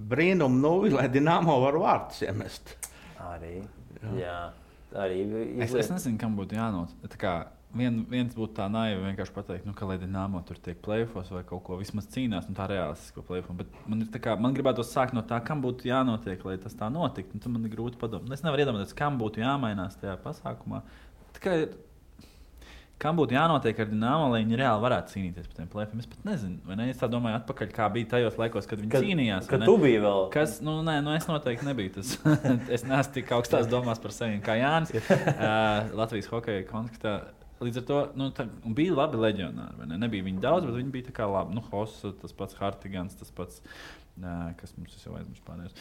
brīnumu nuvi, lai Dinamo var vārtus iemest. Arī, jā. Arī es nezinu, kam būtu jānot. Viens būtu tā naivi vienkārši pateikt, ka lai Dinamo tur tiek play-offos vai kaut ko vismaz cīnās, tā realistisko play-offos. Bet man gribētu sākt no tā, kam būtu jānotiek, lai tas tā notiktu. Tad man ir grūti padomāt. Es nevaru iedomāties, kam būtu jāmainās tajā pasākumā. kam būtu jānotiek ar Dinamo, lai viņi reāli varētu cīnīties par tiem plēfiem? Es pat nezinu, vai ne? Es tā domāju atpakaļ, kā bija tajos laikos, kad viņi cīnījās. Kad tu biji vēl? Es noteikti nebiju tas. Es neesmu tik augstās domās par sevi kā Jānis. Latvijas hokeja kontekstā. Līdz ar to bija labi leģionāri. Ne? Nebija viņi daudz, bet viņi bija tā kā labi. Hossa, tas pats Hartigans, tas pats, kas mums jau aizmirst pārējos.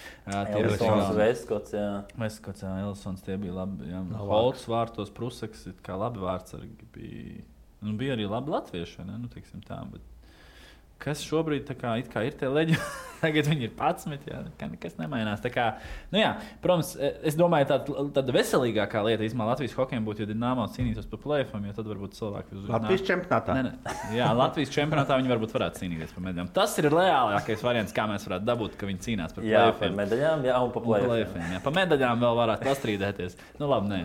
Elsons, Vestkots, jā. Vestkots, jā, Elsons, tie bija labi. Holts vārtos, Prusaks, kā labi vārdsargi bija. Bija arī labi latvieši, ne? Teiksim tā, bet kas šobrīd tā kā ir tie leģionāri? Tagad viņi ir 11, jā, nekas nemainās. Tā kā, protams, es domāju, tāda veselīgākā lieta īstenībā Latvijas hokejam būtu, ja Dinamo cīnītos par play-offiem, jo tad varbūt cilvēki uz Latvijas čempionātā. Jā, Latvijas čempionātā viņi varbūt varētu cīnīties par medaļām. Tas ir reālākais variants, kā mēs varētu dabūt, ka viņi cīnās par play-offiem. Jā, par medaļām, jā, un par play-offiem. Jā, par medaļām vēl varētu pastrīdēties. Labi,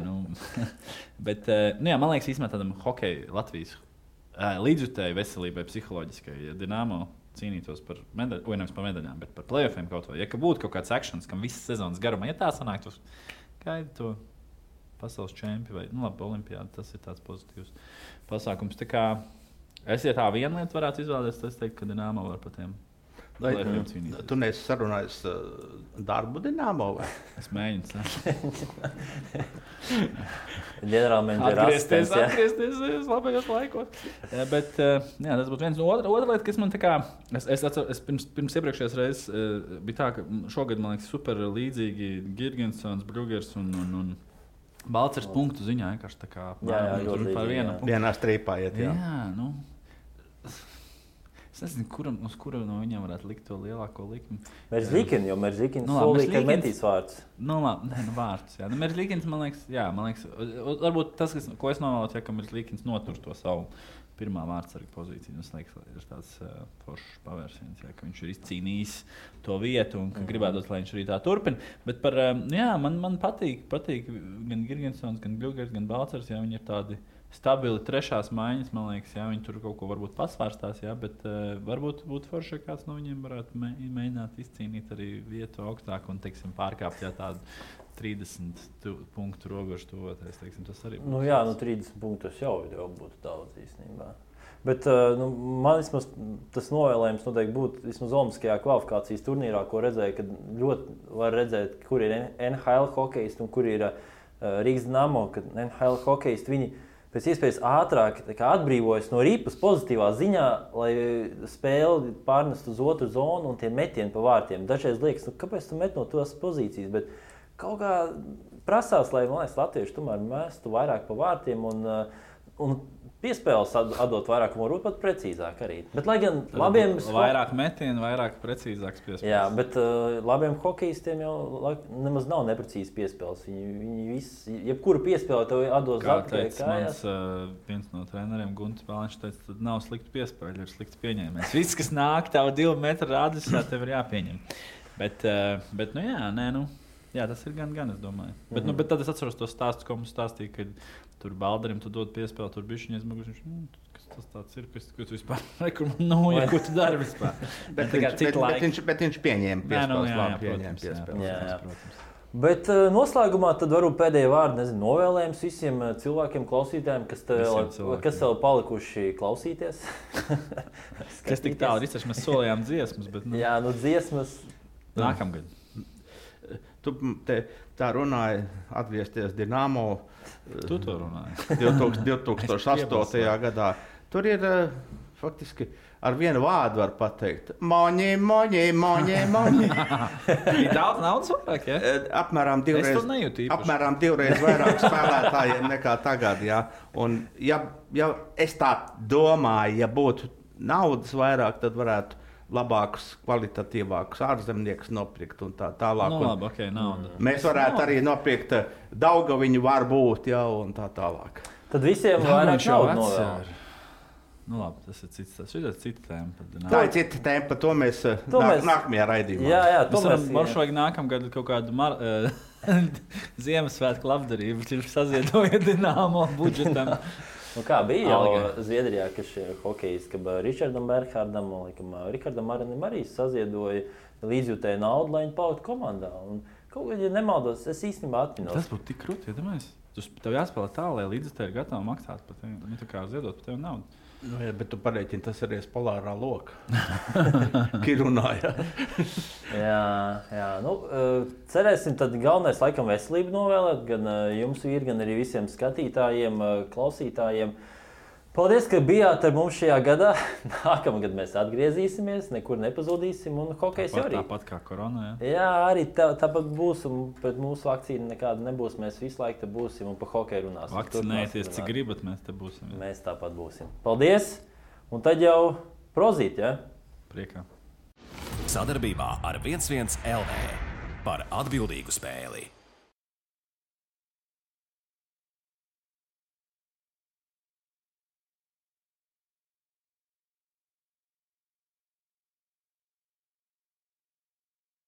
Bet, man liekas, īstenībā tādam hokeja Latvijas līdzjutēji veselībai, psiholoģiskai, ja Dinamo cīnītos par medaļām, vai nevis par medaļām, bet par play-offiem kaut vai. Ja būtu kaut kāds akcents, kam visas sezonas garumā, ja tā sanāktu, gaida to pasaules čempi vai olimpiādu, tas ir tāds pozitīvs pasākums. Tā kā es, ja tā viena lieta varētu izvēlēties, tad es teiktu, ka Dinamo var par tiem play-offiem cīnīties. Tu neesi sarunājis darbu Dinamo? Vai? Es mēģinu. Ģenerālmenedžera atgriezties labajos laikos. Bet tas būtu viens. Otra lieta, kas man tā kā... Es pirms iepriekšējās reizes bija tā, ka šogad, man liekas, super līdzīgi Girgensons, Brugers un Balcers punktu ziņā vienkārši tā kā par vienu punktu. Vienā strīpā iet, jā. Es nezinu, uz kura no viņiem varētu likt to lielāko likmi. Merzlikins, jo Merzlikins solīja, ka metīs vārds. Vārds. Jā. Merzlikins, man liekas, varbūt tas, ko es novēlotu, ka Merzlikins notur to savu pirmā vārdsarga pozīciju. Tas liekas, ir tāds foršs pavērsiens, ka viņš ir izcīnījis to vietu un ka gribētu, lai viņš arī tā turpina. Bet man patīk gan Girgensons, gan Brugers, gan Balcers, viņi ir tādi stabili trešās maiņas, man liekas, viņi tur kaut ko varbūt pasvārstās, bet varbūt būtu forši, ka kāds no viņiem varētu mēģināt izcīnīt arī vietu augstāk un, teiksim, pārkāpt tādu 30 punktu robežu tuvoties, teiksim, tas arī būtu. 30 punktus jau būtu daudz īstenībā. Bet man vismaz tas novēlējums noteikti būtu vismaz olimpiskajā kvalifikācijas turnīrā, ko redzēju, kad ļoti var redzēt, kur ir NHL hokejisti un kur ir Rīgas Dinamo, kad NHL hokejisti viņi pēc iespējas ātrāk atbrīvojas no ripas pozitīvā ziņā, lai spēli pārnest uz otru zonu un tie metieni pa vārtiem. Dažreiz liekas, kāpēc tu met no tās pozīcijas, bet kaut kā prasās, lai, man liekas, latvieši tomēr mestu vairāk pa vārtiem un piespēles atdot vairāk, un varbūt pat precīzāk arī. Bet, lai gan labiem... Vairāk metienu, vairāk precīzāks piespēles. Jā, bet labiem hokejistiem jau nemaz nav neprecīzi piespēles. Viņi visi, jebkuru piespēli tev atdos atpakaļ kājās. Viens no treneriem, Guntis Bāliņš, teica, tad nav slikti piespēļi, ir slikti pieņēmējs. Viss, kas nāk tavu 2 metru rādījumā, tev ir jāpieņem. Bet jā, tas ir gan, es domāju. Bet tad es atceros to stāstu, ko mums stāstīja, kad tur Baldarim tu dod piespēli, tur bišķiņ aizmugurs, kas tas tāds ir, kas tu vispār nekur ko tu dari vispār. Bet viņš pieņēma piespēles. Jā. Bet noslēgumā tad varbūt pēdējie vārdi, novēlējums visiem cilvēkiem, klausītājiem, kas vēl palikuši klausīties. Kas tik tālu ir, mēs solījām dziesmas, bet... Jā, dziesmas... Nākamgad. Tu tā runāji, atgriezties Dinamo. Tu to runāji. 2008. gadā. Tur ir faktiski ar vienu vārdu var pateikt. Moņi. Ir daudz naudas vairāk, ja? Apmēram divreiz vairāk spēlētājiem nekā tagad, jā. Un ja es tā domāju, ja būtu naudas vairāk, tad varētu labākus, kvalitatīvākus ārzemniekus nopirkt un tā tālāk. Labi, okay, nauda. Mēs varētu arī nopirkt Daugaviņu varbūt, un tā tālāk. Tad visiem vairāk naudu novēl. Labi, tas ir cita tēma. Tā ir cita tēma, par to mēs nākamajā raidījumā. Jā, mums vajag nākamgad kaut kādu Ziemassvētku labdarību, ir saziedojot Dinamo budžetam. Kā bija jau Zviedrijā, ka šie hokejisti, ka Ričardam Berghārdam un Rikardam Aranim arī saziedoja līdzjūtēju naudu, lai viņi paliktu komandā. Un kaut kā, ja nemaldos, es īstenībā atminos. Tas būtu tik krūti, ja domājies? Tev jāspēlē tā, lai līdzekļi ir gatavi maksāt par tevi. Nu, tā kā ziedot par tevi naudu. Nu, jā, bet tu pareiķini, tas ir polārā loka. Kirunāja. Jā. Nu, cerēsim, tad galvenais laikam veselību novēlēt gan jums, vīri, gan arī visiem skatītājiem, klausītājiem. Paldies, ka bijāt ar mums šajā gadā. Nākamgad mēs atgriezīsimies, nekur nepazudīsim un hokejs jau arī. Tāpat kā korona, Jā, arī tāpat būs, un pret mūsu vakcīnu nekāda nebūs. Mēs visu laiku te būsim un pa hokeju runāsim. Vakcinēties, cik gribat, mēs te būsim. Jā. Mēs tāpat būsim. Paldies! Un tad jau prozīt, ja? Priekā. Sadarbībā ar 11 LV par atbildīgu spēli.